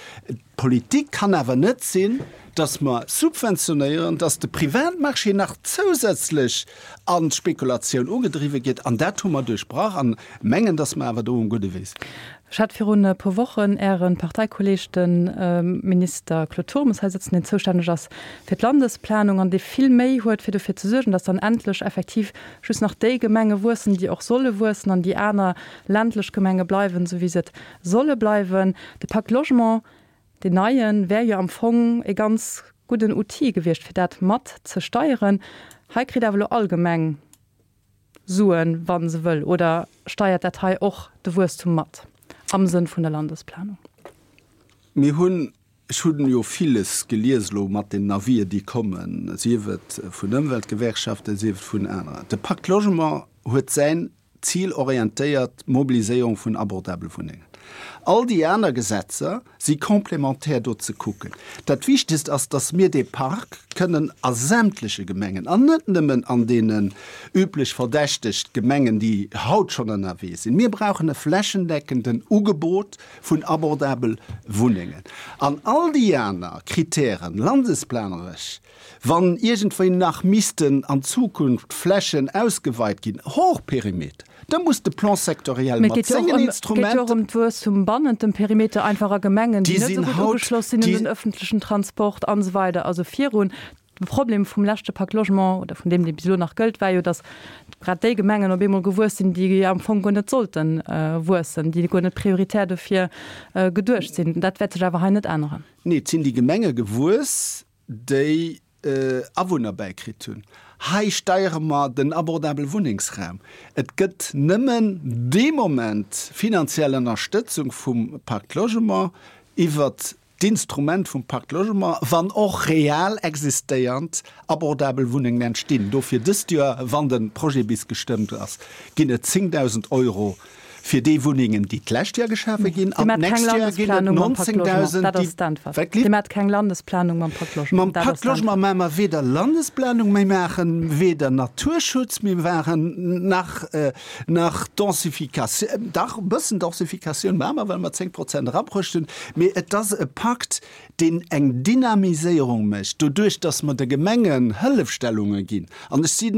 d'Politik kann awer net sinn, dass mer subventionéieren, dass de Privatmarché nach zousätzlech an d'Spekulatioun ugedriwwe gëtt. An dat hu mer duerchbrach an mengen, dass mer awer do um gudde Wee sinn. Ech hat virun e puer Wochen Äre Parteikolleeg, de Minister Claude Turmes, hei sëtzen, deen zoustänneg ass fir d'Landesplanung an dee vill Méi huet, fir dofir ze suergen, dass dann endlech effektiv just nach déi Gemenge wuessen, déi och solle wuessen, an déi aner ländlech Gemenge bleiwen, esou wéi se et solle bleiwen. De Pacte Logement, deen neien, wär jo am Fong e ganz gudden Outil gewiescht, fir dat mat ze steieren. Hei kritt awer elo all Gemeng Suen, wa se wëll. Oder steiert dat hei och de Wuesstum mat am Sënn vun der Landesplanung? Mir hunn, ech hunn jo villes gelies elo mat den Avis'en, déi kommen, sief et vun Ëmweltgewerkschaften, sief et vun aneren. De Pacte Logement huet säin Zilorientéiert Mobiliséierung vun abordabele Wunnengen. All déi aner Gesetzer si complémentaire do ze kucken. Dat Wichtegst ass, dass mir dee Park kënnen a sämtleche Gemengen, an net nëmmen an deenen üblech verdächtegt Gemengen, déi haut schonn ënnerwee sinn, mir brauchen e flächendeckenden Ugebot vun abordabel Wunnengen. An all déi aner Kritären, landesplaneresch, Wann iergendwéi nach missten an Zukunft Flächen ausgeweit ginn, hors Perimeter, da muss de Plan sectoriel mat sengen Instrumenten. Et geet jo och ëm d'Wuesstum bannent dem Perimeter, einfach a Gemengen, déi net esou gutt ugeschloss sinn un den öffentlechen Transport an esou weider. Also virun. De Problem vum leschte Pacte Logement, oder vun deem, dee bis elo nach gëllt, war jo, datt grad déi Gemengen op eemol gewuess sinn, déi am Fong guer net sollte wuessen, déi guer net prioritär dofir geduecht sinn. Dat wäert sech awer hei net änneren. Nee, et sinn déi Gemenge gewuess, déi Awunner bäikritt hunn. Hei steiere mer den abordabele Wunnengsraum. Et gëtt nëmmen dee Moment finanziell Ënnerstëtzung vum Pacte Logement iwwert d'Instrument vum Pacte Logement, wann och real existéiernd abordabel Wunnengen entstinn. Dofir dëst Joer, wann de Projet bis gestëmmt ass, ginn et 10.000 Euro fir déi Wunnengen, déi d'lescht Joer geschafe ginn, an d'nächst Joer ginn et 19.000, déi. Dir maacht keng Landesplanung mam Pacte Logement. Mam Pacte Logement maache mer weder Landesplanung, mir maache weder Naturschutz, mir maachen nach Nach Densificatioun, dach e bëssen Densificatioun maache mer, well mer 10 Prozent erabruecht hunn, mee et ass e Pakt, deen eng Dynamiséierung mécht, doduerch datt mer de Gemengen Hëllefstellunge ginn. An ech si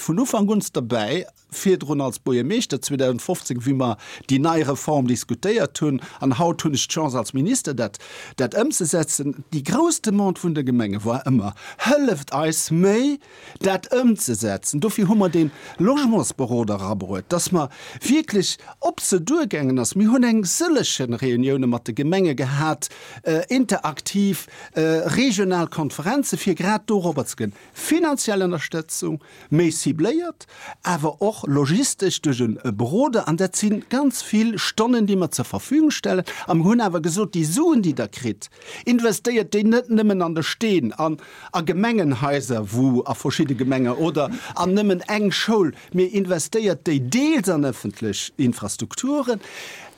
vun Ufank un derbäi, virdrun als Buergermeeschter 2015, wéi mer déi nei Reform diskutéiert hunn, an haut hunn ech d'Chance als Minister dat dat ëmzesetzen. Déi grouss Demande vun de Gemenge war ëmmer, Hëlleft eis méi dat ëmzesetzen. Dofir hu mer dee Logementsberoder erabruet, dass mer wierklech op se duergaangen ass. Mir hunn eng sëllege Reunioune mat de Gemenge gehat, interaktiv, regional Konferenze fir grad dorobber ze goen. Finanziell Ënnerstëtzung, méi cibléiert, awer och logistesch duerch e Beroder. An dat si ganz vill Stonnen, déi mer zur Verfügung stellen. A mir hunn awer gesot, déi Suen, déi Der kritt, Investéiert déi net nëmmen an de Steen, an a Gemengenhaiser, wou a verschidde Gemenge oder an nëmmen eng Schoul, mee investéiert déi deels an ëffentlech Infrastrukturen,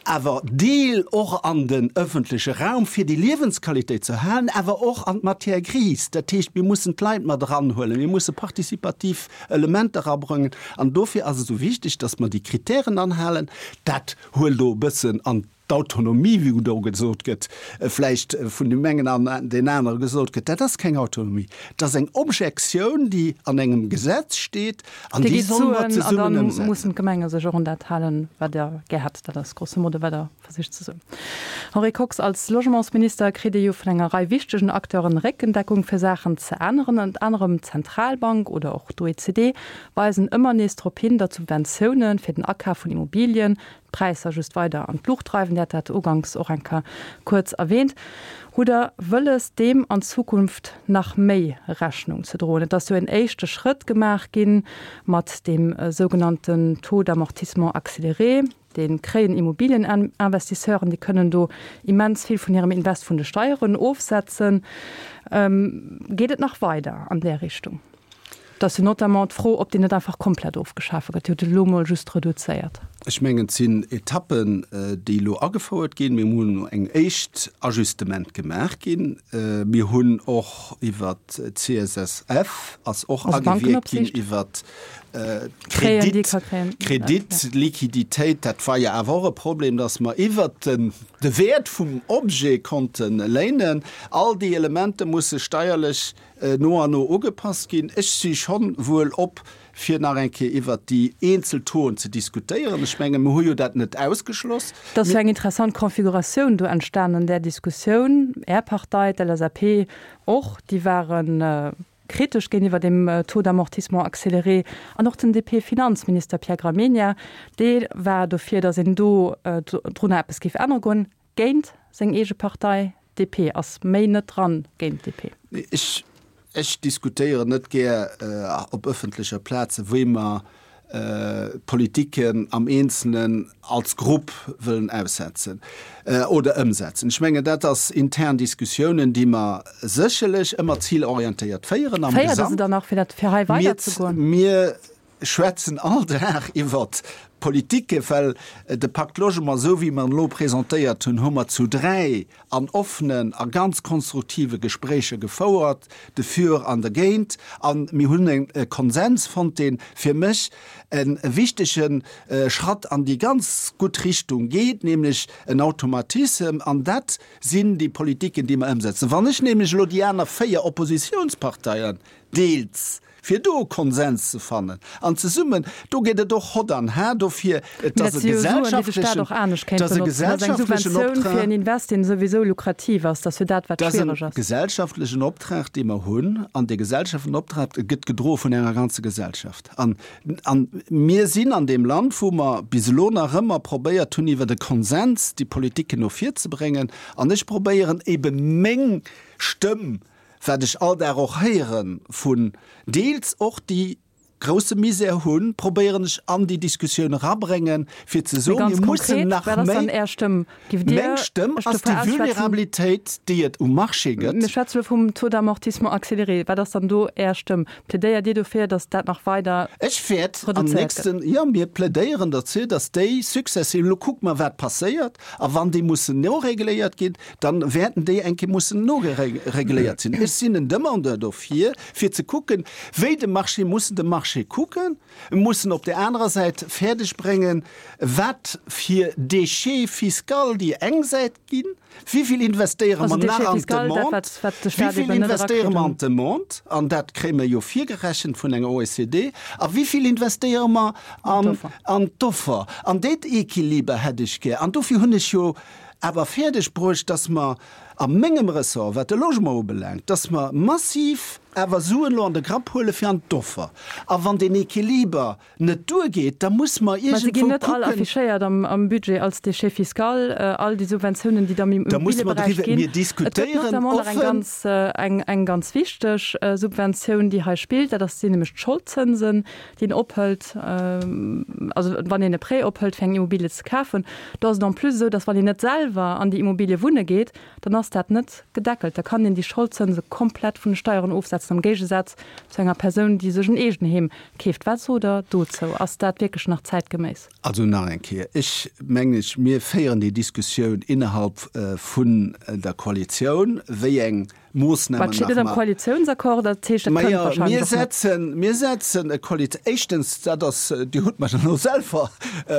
awer deel och an den ëffentleche Raum, fir déi Liewensqualitéit ze erhalen, awer och an d'Matière grise. Dat heescht, mir mussen d'Leit mat eranhuelen, mir musse participativ Elementer erabrëngen. An dofir ass et esou wichteg, dass mer déi Kritären anhalen. Dat huelt do e bëssen an d'Autonomie, wéi do gesot gëtt, vläicht vun deem engen an deen anere gesot gëtt, dat ass keng Autonomie, dat ass eng Objektioun, déi an engem Gesetz steet an déi solle mer zesummen ëmsetzen. An da mussen d'Gemenge sech och un dat halen, wat Der gär hätt. Dat ass grosso modo, wat Der versicht ze soen. Henri Kox, Als Logementsminister kritt Dir jo vun enger Rei wichtegen Acteuren Réckendeckung, fir Saachen ze änneren. Ënnert anerem d'Zentralbank oder och d'OECD weisen ëmmer nees drop hin, datt Subventioune fir den Akaf vun Immobilien, d'Präisser just weider an d'Luucht dreiwen. Dir hat dat uganks och eng Kéier kuerz erwähnt. Hutt Der wëlles, deem an Zukunft nach méi Rechnung ze droen? Et ass jo en éischte Schrëtt gemaach gi mat deem sougenannten Taux d'amortissement accéléré. Dee kréien Immobilieninvestisseuren, déi kënnen do immens vill vun hirem Invest vun de Steieren ofsetzen. Geet et nach weider an där Richtung? Et ass jo notamment d'Fro, ob deen net einfach komplett ofgeschafe gëtt. Dir hutt et elo emol just reduzéiert. Ech mengen, et sinn Etappen, déi elo agefouert ginn. Mir hunn elo eng éischt Ajustement gemaach ginn. Mir hunn och iwwert d'CSSF ass och agewierkt ginn iwwert d'Kredit, Kreditliquiditéit. Dat war jo awer och e Problem, dass mer iwwert de Wäert vum Objet konnte léinen. All déi Elementer musse steierlech no an no ugepasst ginn. Ech si schonn wuel op, fir nach eng Kéier iwwert déi eenzel Tauxen ze diskutéieren. Ech mengen, mir hu jo dat net ausgeschloss. Et ass jo eng interessant Konfiguratioun do entstanen an där Diskussioun. Är Partei, d'LSAP och, déi ware kritesch géintiwwer deem Taux d'amortissement accéléré. An och den DP-Finanzminister Pierre Gramegna, dee war dofir, datt een do drunner eppes géif ännere goen. Géint seng eege Partei, DP, ass méi net dran géint d'DP. Ech, ech diskutéieren net gär op ëffentlecher Plaze wéi mer Politiken am Eenzelen als Grupp wëllen aussetzen oder ëmsetzen. Ech mengen, dat ass intern Diskussiounen, déi mer sécherlech ëmmer zilorientéiert féieren am Féiert Der se dann nach, fir dat, fir hei weiderzegoen? Mir schwätzen all Dag iwwert Politike, well de Pacte Logement, esou wéi mer en elo presentéiert hunn, hu mer zu 3 an offenen a ganz konstruktive Gespréicher gefouert, defür an dergéint, a mir hunn e Konsens fonnt, dee fir mech e wichtege Schratt an déi ganz gutt Richtung geet, nämlech en Automatissem. An dat sinn déi Politiken, déi mer ëmsetzen. Wann ech nämlech elo déi aner 4 Oppositionsparteien deels fir do e Konsens ze fannen an zesummen, do geet et och hott an har. dofir, et ass e gesellschaftlechen, et ass e gesellschaftlechen Optrag. Fir en Invest, deen souwisou lukrativ ass, dat ass jo dat, wat schwiereg ass. Dat ass e gesellschaftlechen Optrag, dee mer hunn, an dee gesellschaftlechen Optrag gëtt gedroe vun enger ganzer Gesellschaft. An, an mir sinn an deem Land, wou mer bis elo nach ëmmer probéiert hunn, iwwert e Konsens déi Politiken no vir ze bréngen. An ech probéieren ebe meng Stëmm, wat ech all Dag och héiere vun deels och déi grousse Misär hunn, probéieren ech an déi Diskussioun erabréngen, fir ze soen, mir mussen nach méi. Meng Stëmm ass déi Vulnerabilitéit, déi et um Marché gëtt. Mir schwätze elo vum Taux d'amortissement accéléré. Wat ass dann do Är Stëmm? Plädéiert Dir dofir, datt dat nach weider Ech wäert am reduzéiert gëtt? nächsten, jo, mir plädéieren derzou, datt déi successiv, elo kucke mer, wat passéiert, a wann déi mussen noregléiert ginn, dann wäerten déi eng Kéier mussen nogeregléiert sinn. Ech sinn en Demandeur dofir, fir ze kucken, wéi de Marché, mussen de Marché kucken, mussen op där anerer Säit fäerdeg bréngen, wat fir Déchet fiscal déi eng Säit ginn, wéi vill investéiere mer nach an d'Demande, wéi vill investéiere mer an d'Demande, an dat kréie mer jo virgerechent vun enger OECD, a wéi vill investéiere mer an d'Offer. An deen Equiliber hätt ech gär. An dofir hunn ech jo awer fäerdeg bruecht, dass mer a mengem Ressort, wat de Logement ubelaangt, dass mer massiv awer Suen elo an de Grapp huele fir an d'Offer. A wann deen Equiliber net duergeet, da muss mer Mä se iergendwou ginn net all kucken. affichéiert am Budget als Déchet fiscal, all déi Subventiounen, déi da am Da muss mer Immobilieberäich driwwer, ginn. mir Et gëtt diskutéieren notamment nach eng offen. ganz, eng ganz wichteg Subventioun, déi hei spillt, dat ass, sinn nämlech d'Scholdzënsen, déi een ophëlt, also wann een e Prêt ophëlt fir eng Immobilie ze kafen, do ass et en plus esou, datt wann een net selwer an déi Immobilie wunne geet, dann ass dat net gedeckelt. Da kann een déi Scholdzënse komplett vun de Steieren ofsetzen, am Géigesaz zu enger Persoun, déi sech en Eegenheem keeft. Wat sot Der dozou? Ass dat wierklech nach zäitgeméiss? Also nach eng Kéier, ech mengen, mir féieren déi Diskussioun innerhalb vun der Koalitioun, wéi eng Moossnamen nach steet net am mar. Koalitiounsaccord, dat heescht, dat kënnt Majo, wahrscheinlech mir och net. setzen, mir setzen e Koalit-, éischtens, dat ass, Dir hutt mer elo selwer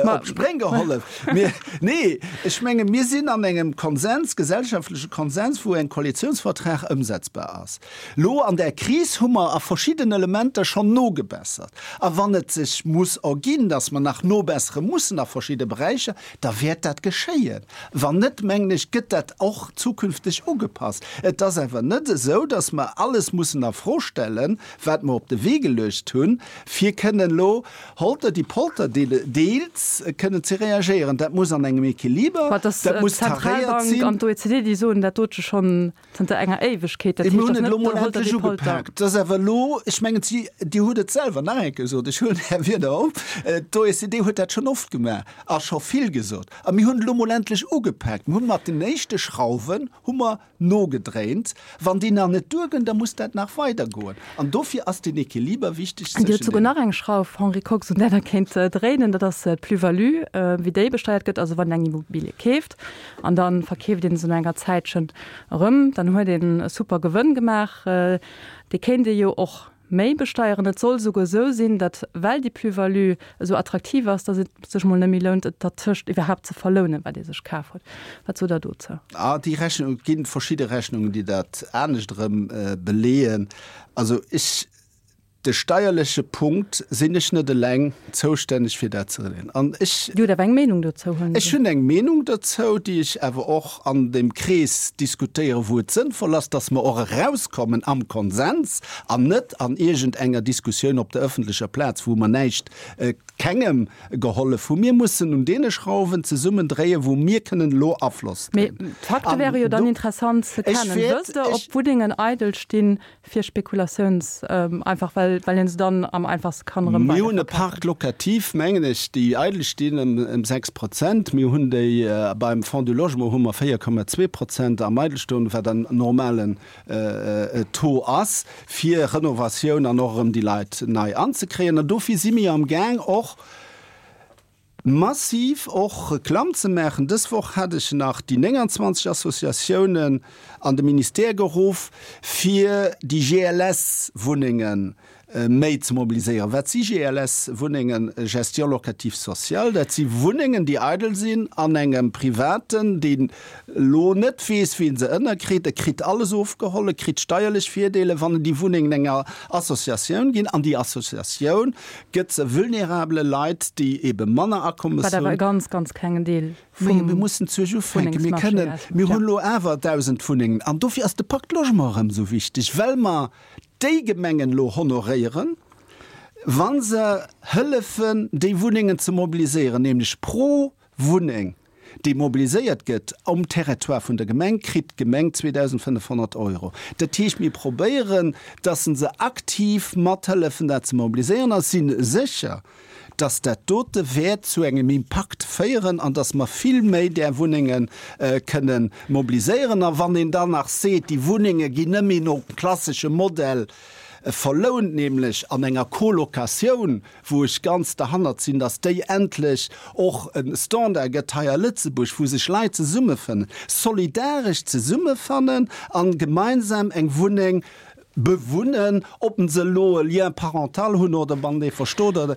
Ma. op d'Spréng gehollef. Mir, nee, ech menge mir sinn an engem Konsens, gesellschaftleche Konsens, wou eng Koalitiounsvertrag ëmsetzbar ass. Elo an där Kris hu mer a verschidden Elementer schonn nogebessert. A wann et sech muss erginn, dass mer nach nobessere mussen a verschidde Beräicher, da wäert dat geschéien. Wann net, mengen ech, gëtt dat och zukünfteg ugepasst. Et ass awer net esou, dass mer alles mussen a Fro stellen, wat mer op de Wee geluecht hunn, fir kënnen elo holter die polter deels kënnen ze reagéieren. Dat muss an engem Equiliber, dat muss taréiert D'Zentralbank sinn. an d'OECD, déi soen dat dote schonn Zënter enger Éiwegkeet, dat Mir heescht, hunn datt et net elo mol der Holter endlech die Polter. ugepaakt. Et ass awer elo, ech mengen, si, Dir hutt et selwer nach eng Kéier gesot, ech huelen Är Wierder op, d'OECD huet dat schonn oft gemaach a scho vill gesot. A mir hunn et elo mol endlech ugepaakt. Mir hu mat den éischte Schrauwen hu mer nogedréint. Wann déi nach net duerginn, da muss dat nach weidergoen. An dofir ass den Equiliber wichteg Dir hutt zwëschen souguer deenen. nach eng Schrauf, Henri Kox, un där Der kéint dréinen, dat ass d'Plus-value, wéi déi besteiert gëtt. Also wann een eng Immobilie keeft an da verkeeft een se no enger Zäitchen erëm, dann huet een e super Gewënn gemaach. Dee kéint ee jo och méi besteieren. Et soll souguer esou sinn, datt, well déi Plus-value esou attraktiv ass, datt et sech mol net méi lount, et dertëscht iwwerhaapt ze verlounen, wat ee sech kaf huet. Wat sot Der dozou? Ah, déi Rechnung, et gi verschidde Rechnungen, déi dat anescht erëm beleeën. Also ech De steierleche Punkt sinn ech net eleng zoustänneg fir dat ze regeln. An ech. Dir hutt awer eng Meenung dozou, huelen ech. Ech hunn eng Meenung dozou, déi ech awer och an deem Krees diskutéieren, wou et sënnvoll ass, dass mer och erauskommen am Konsens an net an iergend enger Diskussioun op der öffentlecher Plaz, wou mer näischt, kengem gehollef hunn. Mir mussen un deene Schrauwen zesummen dréien, wou mir kënnen elo Afloss Mee dréinen. d'Fakte An wäre jo dann do. interessant ze Ech kennen. wäert, Wësst Der, ob ech. Wunnengen eidel stinn, Fir Spekulatiouns, einfach well well een se dann am einfachste kann erëm Mir hunn e weiderverkafen. Parc locatif, mengen ech, déi eidel stinn, ëm ëm 6 Prozent. Mir hunn déi beim Fonds du Logement hu mer 4,2 Prozent am Eidelstoen, wat en normalen Taux ass, fir Renovatioun an och erëm déi Leit nei anzekréien. An dofir si mir amgaang och, massiv och Reklamm ze maachen. Dës Woch hat ech nach déi 29 Associatiounen an de Ministère geruff, fir déi GLS-Wunnengen. méi ze mobiliséieren. Wat si GLS-Wunnengen, Gestion locative sociale? Dat si Wunnengen, déi eidel sinn an engem Privaten, deen elo net weess, wéi en se ënnerkritt. E kritt alles ofgeholl, e kritt steierlech Virdeeler, wann en déi Wunnengen enger Associatioun ginn. An déi Associatioun gëtt se vulnerabele Leit, déi ebe manner Akommes hunn. Wat awer e ganz, ganz klengen Deel vum Mir mussen zuerch ufänken. Mir kënnen, mir hunn elo awer 1.000 Wunnengen. An dofir ass de Pacte Logement erëm esou wichteg, well mer déi Gemengen elo honoréieren, wa se hëllefen, déi Wunnengen ze mobiliséieren, nämlech pro Wunneng, déi mobiliséiert gëtt um Territoire vun der Gemeng, kritt d'Gemeng 2.500 Euro. Dat heescht, mir probéieren, dass se aktiv mathëllefen, dat ze mobiliséieren a si sécher, dass dat dote wäert zu engem Impakt féieren an dass mer vill méi där Wunnenge kënnen mobiliséieren. A wann een dann nach seet, déi Wunnenge ginn net méi nom klassesche Modell verlount, nämlech an enger Colocatioun, wou ech ganz derhannert sinn, dass déi endlech och e Standard gëtt hei a Lëtzebuerg, wou sech Leit zesummefënnen, solidaresch zesummefannen a gemeinsam eng Wunneng bewunnen, ob se elo e Lien parental hunn oder wann dee verstot oder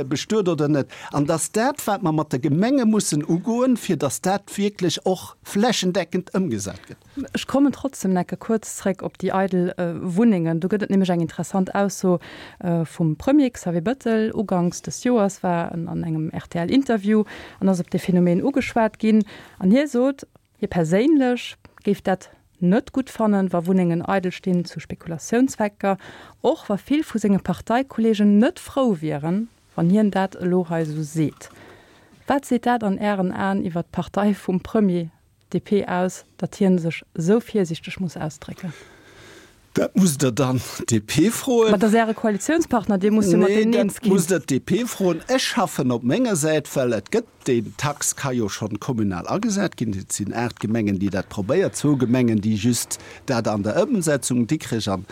bestuet oder net, an dass dat, wat mer mat de Gemenge mussen ugoen, fir dass dat wierklech och flächendeckend ëmgesat gëtt. Ech kommen trotzdem necke kuerz zréck op déi eidel Wunnengen. Do gëtt et nämlech eng interessant Ausso vum Premier Xavier Bettel. Uganks des Joers war en an engem RTL-Interview an ass op dee Phänomen ugeschwat ginn. An hie sot, Hie perséinlech géif dat net gutt fannen, wa Wunnengen eidel stinn zu Spekulatiounszwecker, och wa vill vu senge Parteikolleegen net frou wieren, wann hien dat elo hei esou seet. Wat seet dat an Ären Aen iwwer d'Partei vum Premier, DP, aus, datt hien sech esou virsiichteg muss ausdrécken? Dat musst Der dann d'DP froen. Ma dat ass Äre Koalitiounspartner, Dir musst jo mat deenen eens ginn. Nee, dat musst Der d'DP froen. Ech schaffen op menger Säit, well et gëtt, déi Tax ka jo schonn kommunal agesat ginn. Et sinn 8 Gemengen, déi dat probéiert, zwou Gemengen, déi just dat an der Ëmsetzung, Dikrech an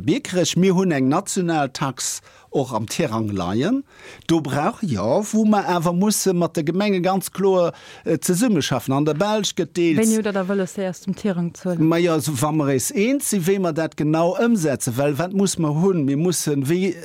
Biekerech. Mir hunn eng national Tax och am Tirang leien. Do brauch, jo, wou mer awer musse mat de Gemenge ganz kloer zesummeschaffen. An der Belsch gëtt deels. Wéini hutt Der da wëlles, déi aus dem Tirang ze huelen? Majo, wa mer eis eens sinn, wéi mer dat genau ëmsetzen. Well wat muss mer hunn? Mir mussen, wéi,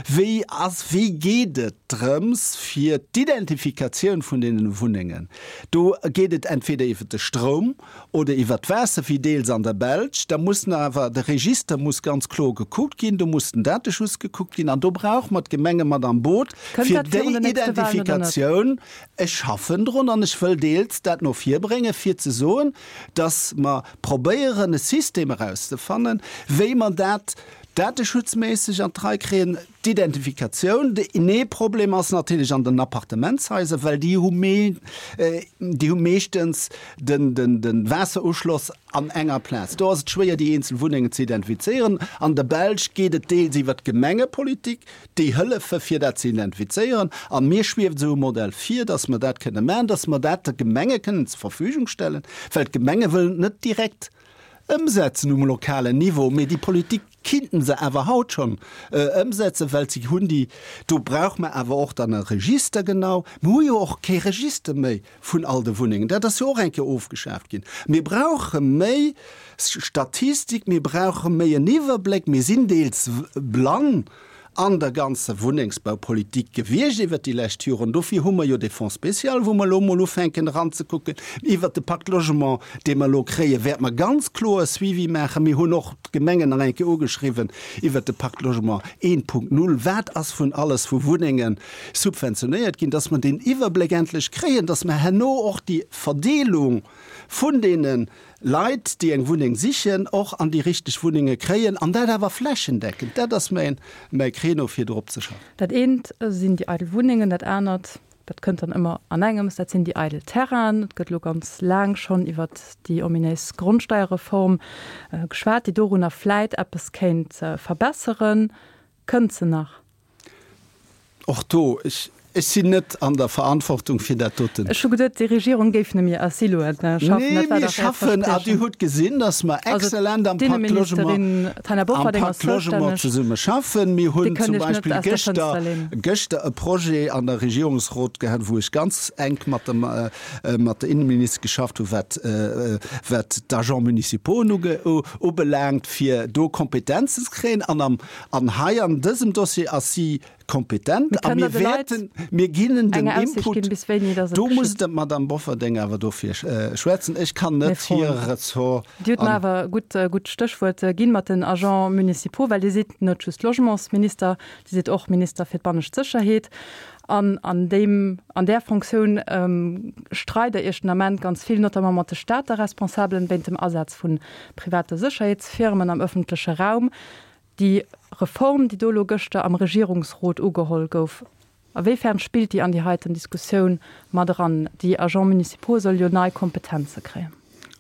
wéi ass, wéi geet et drëms fir d'Identifikatioun vun deenen Wunnengen? Do geet et entweder iwwert de Stroum, oder iwwert d'Waasser wéi deels an der Belsch, da muss awer de Register muss ganz kloer gekuckt ginn, do muss den Dateschutz gekuckt ginn an do brauche mer d'Gemenge mat am Boot Kënnt fir dat virun déi den nächste Wahlen oder net? Identifikatioun. Ech schaffen drun an ech wëll deels dat no vir bréngen, fir ze soen, dass mer probéieren e System erauszefannen, wéi mer dat dateschutzméisseg an d'Rei kréien. D'Identifikatioun, nee Problem ass natierlech an den Appartementshaiser, well déi hu déi hu meeschtens den den den Waasseruschloss an enger Plaz. Do ass et schwéier déi eenzel Wunnengen ze identifizéieren. An der Belsch geet et deels iwwer d'Gemengepolitik, déi hëllefe fir dat ze identifizéieren. An mir schwieft esou e Modell vir, datt mer dat kënne maachen, datt mer dat de Gemenge kënnen zur Verfügung stellen, well d'Gemenge wëllen et net direkt ëmsetzen um lokalen Niveau, mee déi Politik kinnten se awer haut schonn ëmsetzen, well se hunn déi. Do brauche mer awer och dann e Register genau. Mir hu jo och kee Register méi vun all de Wunnengen. Dat ass jo och eng Kéier ofgeschaaft ginn. Mir brauche méi Statistik, mir brauche méi en Iwwerbléck. Mir sinn deels blann an der ganzer Wunnengsbaupolitik gewiescht iwwert déi lescht Joren. Dofir hu mer jo dee Fonds spécial, wou mer elo emol ufänken eranzekucken. Iwwert de Pacte Logement, dee mer elo kréien, wäerte mer ganz kloer e Suivi maachen. Mir hunn och d'Gemengen nach eng Kéier ugeschriwwen iwwert de Pacte Logement 1.0. Wat ass vun alles vu Wunnenge subventionéiert ginn, dass mer deen Iwwerbléck endlech kréien, dass mer herno och déi Verdeelung vun deene Leit, déi eng Wunneng sichen, och an déi richteg Wunnenge kréien, an dat awer flächendeckend. Dat ass mäin, mäi Créneau, fir drop ze schaffen. Dat eent sinn déi eidel Wunnengen, dat anert, dat kënnt dann ëmmer an engems, dat sinn déi eidel Terrainen. Et gëtt elo ganz laang schonn iwwert déi ominéis Grondsteierreform geschwat, déi dorunner vläit eppes kéint verbesseren. Kënnt se nach? Och do, ech. Ech sinn net an der Verantwortung fir dat doten. Ech hu geduet, déi Regierung géif nëmme a Siloen schaffen. Nee, mir schaffen, a Dir hutt gesinn, datt mer exzellent am Pacte Logement, am Pacte Logement zesumme schaffen. Mir hunn zum Beispill gëschter, gëschter e Projet an der Regierungsrot gehat, wou ech ganz enk mat dem, mat der Innenministesch geschafft hu wat, wat d'Agents municipaux ubelaangt, fir do Kompetenzen ze kréien. An am, an hei an dësem Dossier ass si kompetent a mir wäerten, mir ginn en den Input, do muss d'Madame Bofferding awer dofir schwätzen, ech kann net hir Ressort. Dir hutt mer awer e gutt, gutt Stéchwuert ginn mat den Agents municipaux, well Dir sidd net just Logementsminister, Dir sidd och Minister fir d'bannescht Sécherheet. An an deem, an där Fonctioun streit Der Iech den Ament ganz vill, notamment mat de Stater Responsabelen, wéint dem Asaz vu private Sécherheetsfirmen am ëffentleche Raum. Déi Reform, déi do elo gëschter am Regierungsrot ugeholl gouf, a wéi fern spillt déi an déi heiten Diskussioun mat eran? Déi Agents municipaux solle jo nei Kompetenze kréien.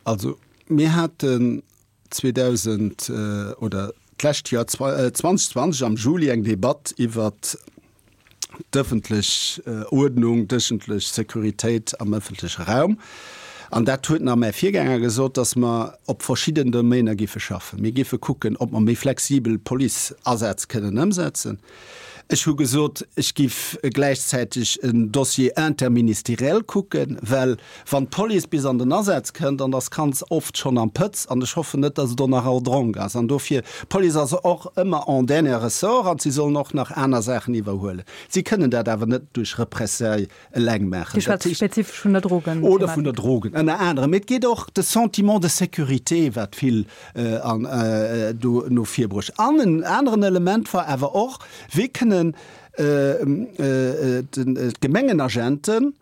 Also mir haten 2000 oder d'lescht Joer 2020 am Juli eng Debatt iwwert d'ëffentlech Uerdnung, d'ëffentlech Sécuritéit am ëffentleche Raum. An dat huet nach mäi Virgänger gesot, dass mer op verschidden Domainer géife schaffen. Mir géife kucken, ob mer méi flexibel Policeasätz kënnen ëmsetzen. Ech hu gesot, ech géif gläichzäiteg en Dossier interministériel kucken, well Wann d'Police bis an den Asaz kënnt, an ass ganz oft schonn am Pëtz, an ech hoffen net, dass et och nach en Dronk ass, an dofir, d'Police ass och ëmmer en dernier ressort an si sollen och nach aner Saachen iwwerhuelen. Si kënnen dat awer net duerch Repressailles eleng maachen. Dir schwätzt spezifesch vun der Drogen-Thematik. Oder vun der Drogen, ënner anerem. Mee et geet och de Sentiment de sécurité, wat vill an do no vir bruecht. An en aneren Element war awer och, Wéi kënnen d'Gemengenagenten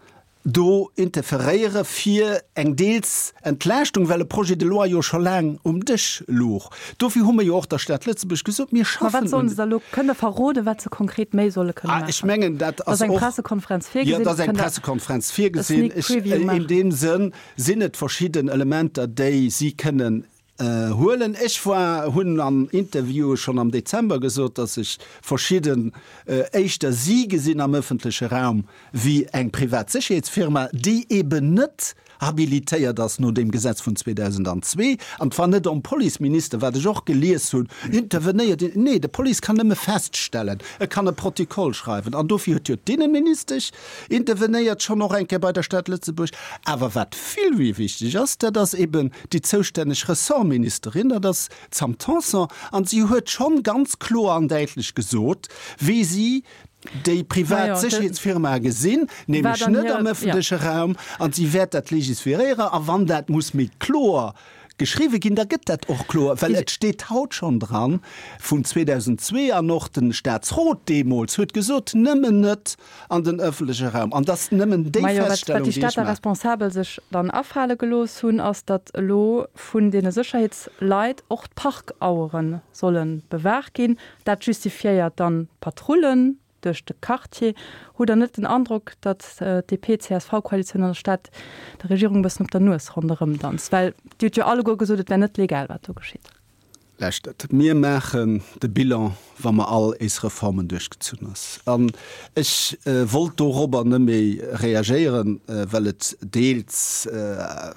do interferéiere fir eng deels Entlaaschtung, well e Projet de loi jo scho laang um Dësch louch. Dofir hu mir jo och der Stad Lëtzebuerg gesot, mir Ma schaffen wat sollen un. se da elo? Kënnt Der verroden, wat se konkret méi solle kënne Ah, ech maachen? mengen, dat Ass ass eng och, Pressekonferenz jo, virgesinn? et ass eng Kënnt Der Pressekonferenz e virgesinn. Sneak Ech, Preview in maachen? deem Sënn sinn et verschidden Elementer, déi si kënnen Huelen. Ech war, hunn an Interviewe schonn am Dezember gesot, datt ech verschidden éischter si gesinn am ëffentleche Raum wéi eng privat Sécherheetsfirma, déi eben net habilitéiert ass no deem Gesetz vun 2002. An et war net om Policeminister, wat ech och gelies hunn, intervenéiert. Nee, de Police kann nëmme feststellen, e kann e Protokoll schreiwen. An dofir huet jo d'Innenministesch intervenéiert, schonn och eng Kéier bei der Stad Lëtzebuerg. Awer wat vill méi wichteg ass, dat ass eben déi zoustänneg Ressortministerin, dat ass d'Sam Tanson, an si huet schonn ganz kloer an däitlech gesot, wéi si déi privat Sécherheetsfirmae gesinn, nämlech net am ëffentleche Raum, an si wäert dat legisferéieren. A wann dat muss méi kloer geschriwwe ginn, da gëtt dat och kloer, well et steet haut schonn dran vun 2002, an och de Statsrot deemools huet gesot, nëmmen net an den ëffentleche Raum. An dass nëmmen déi Majo, wat, wat Feststellung, déi déi ech Stater maachen. Responsabel sech dann afale gelooss hunn, ass, datt elo vun deene Sécherheetsleit och d'Parkauere solle bewaacht ginn. Dat justifiéiert dann d'Patrullen duerch de Quartier. Hutt Der net den Androck, datt d'DP-CSV-Koalitioun an der Stad der Regierung e bëssen op der Nues ronderëmdanzt? Well Dir hutt jo alleguer gesot, et wär net legal, wat do geschitt. Lauschtert, mir maachen de Bilan, wa mer all éis Reformen duerchgezunn ass. An ech wollt dorobber net méi reagéieren, well et deels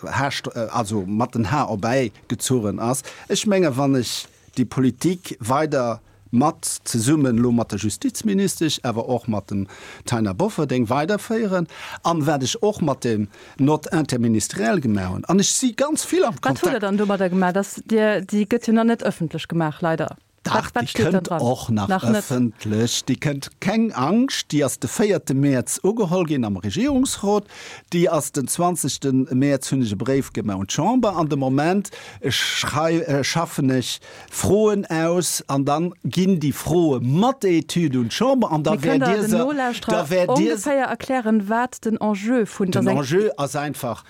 haascht, also mat den Har erbäi gezuchen ass. Ech menge wann ech déi Politik weider mat zesummen elo mat der Justizministesch, awer och mat dem Taina Bofferding weiderféieren an wat ech och mat dem Note interministérielle gemaach hunn, an ech si ganz vill am Wat hutt Der Kontakt. dann domadder gemaach? Dass Dir, déi gëtt jo nach net ëffentlech gemaach, leider. Dach, Wat, wat déi steet dann kënnt dran? och nach Nach net. ëffentlech. Déi kënnt, keng Angscht, déi ass de véierte Mäerz ugeholl ginn am Regierungsrot. Déi ass den zwanzegste Mäerz hunn ech e Bréif gemaach un d'Chamber an de Moment schrei, schaffen ech Froen aus an dann ginn déi Froe mat der Etüd un d'Chamber an da Mee kënnt wäert Der Dir den se, da Nolauschterer wäert Dir se. ongeféier erklären, wat den Enjeu vun Den der. Enjeu ass einfach,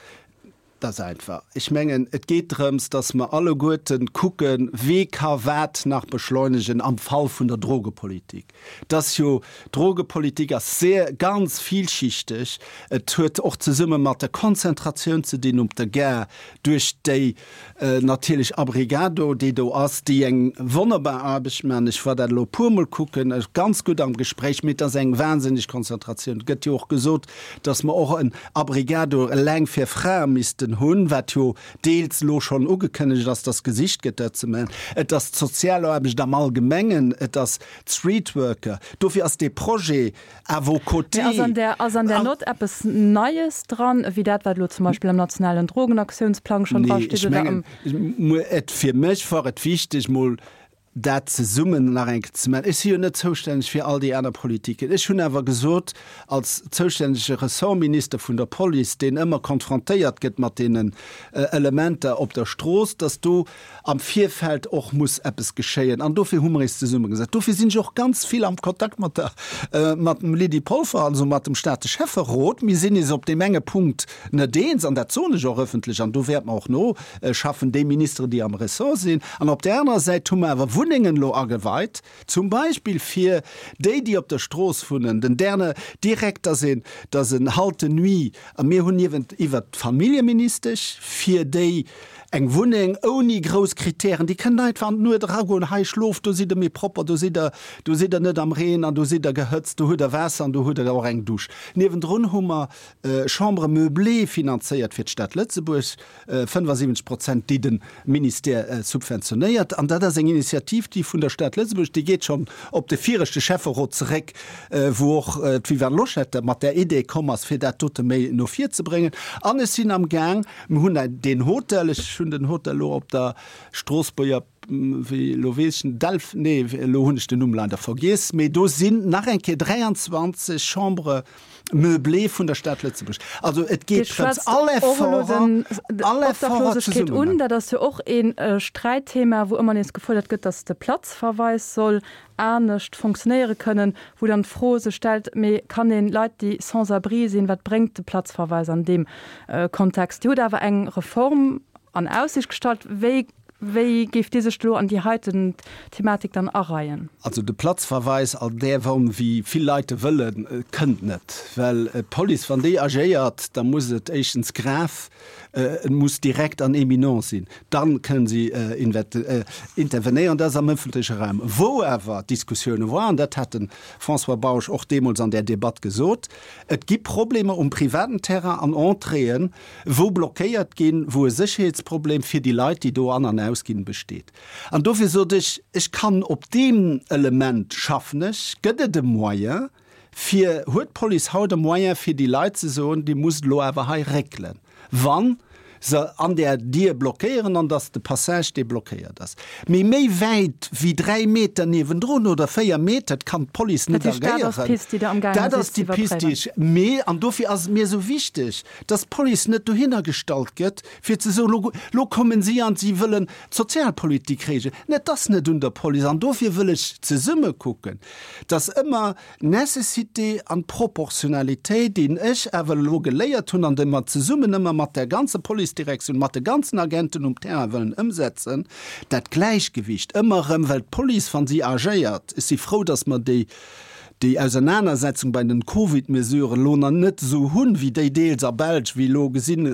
Dat ass einfach. Ech mengen, et geet drëms, dass mer alleguerten kucken, wee ka wat nach beschleunegen am Fall vun der Drogepolitik. Et ass jo, d'Drogepolitik ass sehr, ganz vielschichteg. Et huet och zesumme mat der Konzentratioun ze dinn op der Gare duerch déi natierlech Abrigado, déi do ass, déi eng wonnerbar Aarbecht maachen. Ech war dat elo e puermol kucken, ganz gutt am Gespréich, mee et ass eng wahnsinneg Konzentratioun. Et gëtt jo och gesot, dass mer och en Abrigado eleng fir Frae missten hunn, wat jo deels elo schonn ugekënnegt ass, dass gesicht gëtt, dat ze maachen. Et ass d'Sozialaarbecht am Allgemengen, et ass d'Streetworker. Dofir ass dee Projet à vos côtés. Mee ass an där, ass an där Nott eppes Neies dran, ewéi dat, wat elo zum Beispill am nationalen Drogenaktiounsplang schonn Nee, drasteet ech oder am. mengen, et, fir mech war et wichteg, mol dat zesummen nach eng Kéier ze maachen. Ech si jo net zoustänneg fir all déi aner Politiken. Ech hunn awer gesot, als zoustännege Ressortminister vun der Police, deen ëmmer konfrontéiert gëtt mat deenen Elementer op der Strooss, datt do am Virfeld och muss eppes geschéien. An dofir hu mer eis zesummegesat. Dofir sinn ech och ganz vill am Kontakt mat der, mat dem Lydie Polfer, also mat dem Stater Schäfferot. Mir sinn eis op deem enge Punkt net eens, an dat soen ech och ëffentlech, an do wäerte mer och no schaffen, déi Ministeren, déi am Ressort sinn. An op där anerer Säit hu mer awer Wunnengen elo ageweit, zum Beispill fir déi, déi op der Strooss wunnen, den Derne direkt, dass een, dass en Halte nuit, a mir hunn niewent iwwert d'Familljeministesch fir déi eng Wunneng ouni grouss Kritären, déi kënnen einfach an d'Nuet eragoen, hei schlooft, do sidd der méi propper, do sidd der, do sidd der net am Reen an do sidd der gehëtzt, do hutt der Waasser an do hutt der och eng Dusch. Niewendrun hu mer Chambres meublées finanzéiert fir d'Stad Lëtzebuerg, 75 Prozent, déi de Ministère subventionéiert. An dat ass eng Initiativ, déi vun der Stad Lëtzebuerg, déi geet schonn op de viregte Schäfferot zeréck, wou och d'Viviane Loschetter mat där Idee komm ass, fir dat dote méi no vir ze bréngen. An ech sinn am Gaang, mir hunn deen Hotel, ech hunn den Hotel elo op der Stroossbuerger, wéi, elo weess ech net, Delf, nee, elo hunn ech den Numm leider vergiess, mee do sinn nach eng Kéier 23 Chambres meublées vun der Stad Lëtzebuerg. Also et Dir geet drëms, schwätzt all och elo Efforter, den all Efforter d'Obdachlosegkeet zesummen. un. Dat ass jo och ee Sträitthema, wou ëmmer nees gefuerdert gëtt, datt de Platzverweis soll anescht fonctionnéiere kënnen, wou dann d'Fro sech stellt, mee kann een Leit, déi sans-abri sinn, wat bréngt de Platzverweis an deem Kontext? Dir hutt awer eng Reform an Aussicht gestallt. Wéi Wéi géift Dir sech elo an déi heiten Thematik dann areien? Also de Platzverweis an där Form, wéi vill Leit e wëllen, kënnt net. Well d'Police, wann déi agéiert, da muss et éischtens grave, et muss direkt an éminent sinn, da kënnen si intervenéieren. Dat ass am ëffentleche Raum. Wou awer Diskussioune waren, dat hat de François Bausch och deemools an där Debatt gesot, et gi Problemer um privaten Terrain an Entréeën, wou blockéiert ginn, wou e Sécherheetsproblem fir déi Leit, déi do an an ausginn, besteet. An dofir sot ech, ech kann op deem Element schaffen ech, gëtt et e Moyen fir, huet d'Police haut e Moyen fir déi Leit ze soen, Dir musst elo awer hei réckelen, wann se an där Dier blockéieren an dass de Passage, dee blockéiert ass. Mee méi wäit wéi 3 Meter niewendrun oder 4 Meter kann d'Police net Dat heescht, dat ass agéieren. d'Pist, déi Der amgaange Dat sidd ass ze déi Pist, déi iwwerpréiwen. ech, mee, an dofir ass et mir esou wichteg, dass d'Police net dohinner gestallt gëtt, fir ze soen, lo, lo kommen si an si wëllen d'Sozialpolitik regeln. Et ass net un der Police. An dofir wëll ech zesumme kucken, dass ëmmer d'Nécessité an d'Proportionalitéit, déi ech awer elo geléiert hunn an déi mer zesummen ëmmer mat der ganzer Policedirektioun, mat de ganzen Agenten um Terrain wëllen ëmsetzen, dat Gläichgewicht ëmmer erëm, well d'Police, wa si agéiert, ech si frou, dass mer déi, déi Ausernanersetzung bei den Covid-Mesuren elo nach net esou hunn, wéi déi deels a Belsch, wéi elo gesinn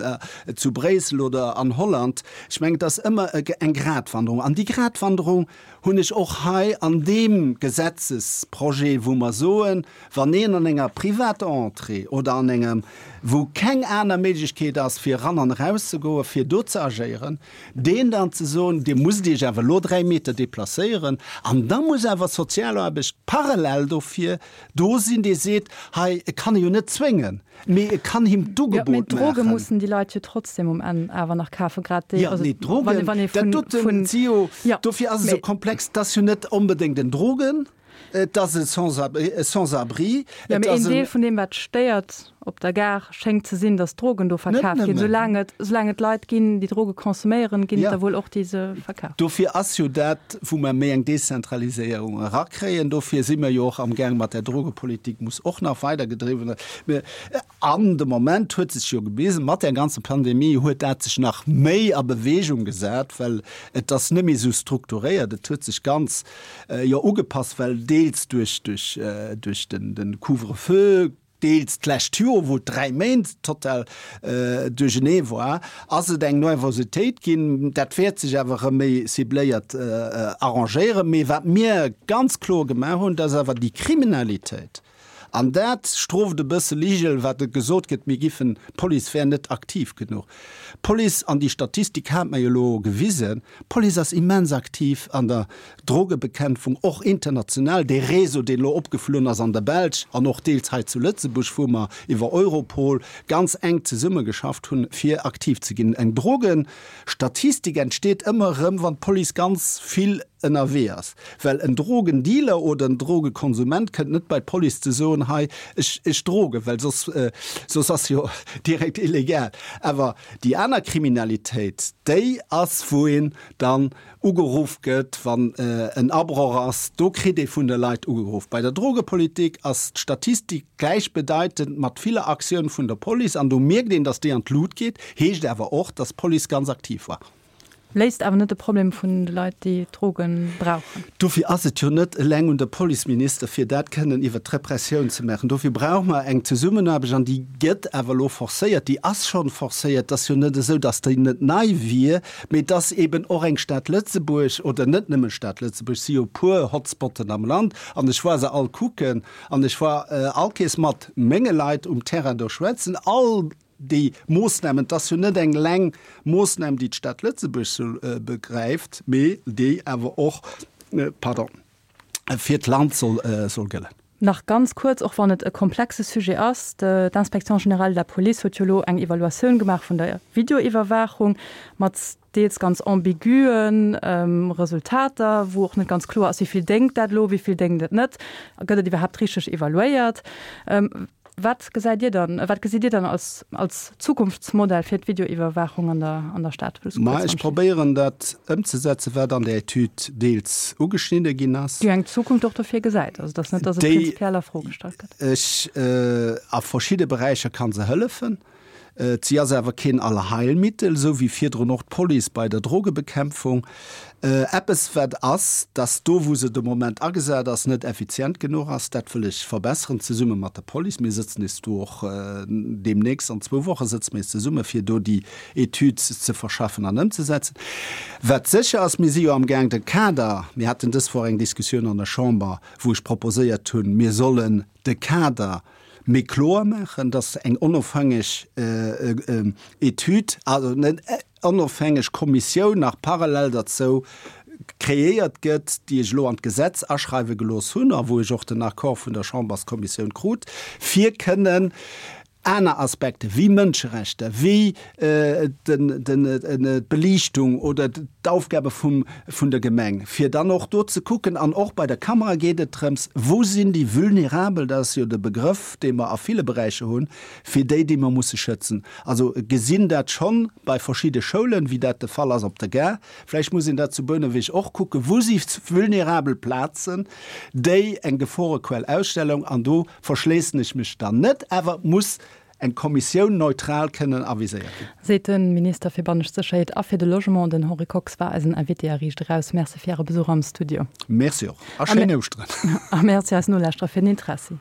zu Bréissel oder an Holland. Ech mengen, et ass ëmmer eng Gratwanderung. An déi Gratwanderung hunn ech och hei an deem Gesetzesprojet, wou mer soen, wann een an enger privater Entrée oder an engem, wou keng aner Méiglechkeet ass, fir eran an erauszegoen, fir do ze agéieren, deen dann ze soen, Dir musst Iech awer elo 3 Meter deplacéieren, an da muss awer d'Sozialaarbecht parallel dofir do sinn, dee seet, hei, e kann e jo net zwéngen, mee e kann him Jo, mee d'Ugebot d'Droge maachen. mussen déi Leit jo trotzdem um Enn awer nach kafen, grad déi, Jo, also nee, wann d'Drogen, wann ee dat vun, doten vun, si jo, jo, dofir ass et esou mee. komplex, et ass jo net onbedéngt en Drogen, et ass e Sans-abri, Jo, et mee een ass en. Deel vun deem, wat stéiert. op der Gare schéngt ze sinn, datt Drogen do verkaf ginn. Soulaang et, soulaang et Leit ginn, déi Droge consomméieren, ginn et der wuel och, déi se verkafen. Dofir ass jo dat, wou mer méi eng Dezentraliséierung erakréien, dofir si mer jo och amgaang mat där Drogepolitik, muss och nach weidergedriwwen. An de Moment huet sech jo gewisen, mat där ganzer Pandemie huet dat sech nach méi a Bewegung gesat, well et ass net méi esou strukturéiert, et huet sech ganz jo ugepasst, well deels duerch duerch duerch den den Couvre-feu, deels d'lescht Joer, wou et 3 Méint total duerchenee war, ass et eng Nervositéit ginn. Dat wäert sech awer erëm méi cibléiert arrangéieren. Mee wat mir ganz kloer gemaach hunn, dat ass awer déi Kriminalitéit, An dat strooft e bësse Ligel, wat et gesot gëtt, mir giffen, d'Police wär net aktiv genuch. D'Police, an déi Statistik hat mer jo elo gewisen, d'Police ass immens aktiv an der Drogebekämpfung, och international. Dee Réseau, deen elo opgeflunn ass an der Belsch an och deels hei zu Lëtzebuerg, wou mer iwwer Europol ganz enk zesummegeschafft hunn, fir aktiv ze ginn. Eng Drogenstatistik entsteet ëmmer erëm, wann d'Police ganz vill ënnerwee ass, well en Drogendealer oder en Drogekonsument kënnt net bei d'Police ze soen, hei ech ech drogen, well soss soss ass jo direkt illegal. Awer déi aner Kriminalitéit, déi ass wou een dann ugeruff gëtt, wann en Abroch ass, do kritt ee vun de Leit ugeruff. Bei der Drogepolitik ass d'Statistik gläichbedeitend mat ville Aktioun vun der Police an do mierkt een, datt déi an d'Lut geet, heescht awer och, datt d'Police ganz aktiv war. Léist awer net de Problem vun de Leit, déi Droge brauchen. Dofir ass et jo net eleng un der Policeminister, fir dat kënnen iwwert d'Repressioun ze maachen. Dofir brauche mer eng Zesummenaarbecht, an déi gëtt awer elo forcéiert, déi ass schonn forcéiert. Et ass jo net esou, datt déi net nei wier, mee et ass eeben och eng Stad Lëtzebuerg, oder net nëmme Stad Lëtzebuerg, et si jo e puer Hotspotten am Land, an ech war se all kucken, an ech war allkéiers mat menge Leit um Terrain do schwätzen, all Déi Moossnamen, et ass jo net eng leng Moossnam, déi d'Stad Lëtzebuerg sou begräift, mee déi awer och, pardon, fir d'Land soll gëllen. Nach ganz kuerz, och wann et e komplexe Sujet ass, D'Inspection générale de la Police huet jo elo eng Evaluatioun gemaach vun der Videoiwwerwaachung mat deels ganz ambigüe Resultater, wou och net ganz kloer ass, wéi vill déngt dat elo, wéi vill déngt et net, gëtt et iwwerhaapt richteg evaluéiert. Wat gesäit Dir dann, wat gesitt Dir dann als, als Zukunftsmodell fir d'Videoiwwerwaachung an der, an der Stad? Wëlls du Ma kuerz ech probéieren dat ëmzesetzen, wat an der Etüd deels ugeschnidde ginn ass. Déi eng Zukunft och dofir gesäit. Also et ass net, datt et Déi prinzipiell a Fro gestallt gëtt. ech, a verschidde Beräicher ka se hëllefen. Si ass awer keen Allheilmittel, esou wéi virdrun och d'Police bei der Drogebekämpfung. Eppes wat ass, dass do wou se de Moment agesat ass, net effizient genuch ass. Dat wëll ech verbesseren, zesumme mat der Police. Mir sëtzen nees do och deemnächst, an zwou Woche sëtze mir zesumme fir do déi Etüd ze verschaffen an ëmzesetzen. Wat sécher ass, mir si jo amgaang de Kader, mir haten dës Woch eng Diskussioun an der Chamber, wou ech proposéiert hunn, mir sollen de Kader méi kloer maachen, dass eng onofhängeg Etüd, also eng onofhängeg Kommissioun nach parallel derzou kreéiert gëtt, déi ech elo an d'Gesetz aschreiwe gelooss hunn a wou ech och den Accord vun der Chamberskommissioun krut, fir kënnen aner Aspekte wéi Mënscherechter, wéi d'Beliichtung oder d'Aufgabe vum, vun der Gemeng, fir dann och do ze kucken, an och bei der Kamera geet et drëms, wou sinn déi Vulnerabel, dat ass jo de Begrëff, dee mer a ville Beräicher hunn, fir déi, déi mer musse schützen. Also gesinn dat schonn bei verschidde Schoulen, wéi dat de Fall ass op der Gare, vläicht muss een dat zu Bouneweg och kucken, wou si vulnerabel Plazen, déi eng Geforequell ausstellen, an do verschléissen ech mech dann net, awer et muss eng Kommissioun neutral kënnen aviséiert ginn. Seet de Minister fir bannescht Sécherheet a fir de Logement. Den Henri Kox war eisen Invité a Riicht Eraus. Merci fir Äre Besuch am Studio. Merci och a schéin Ouschteren. A Merci eis Nolauschterer fir den Interessi.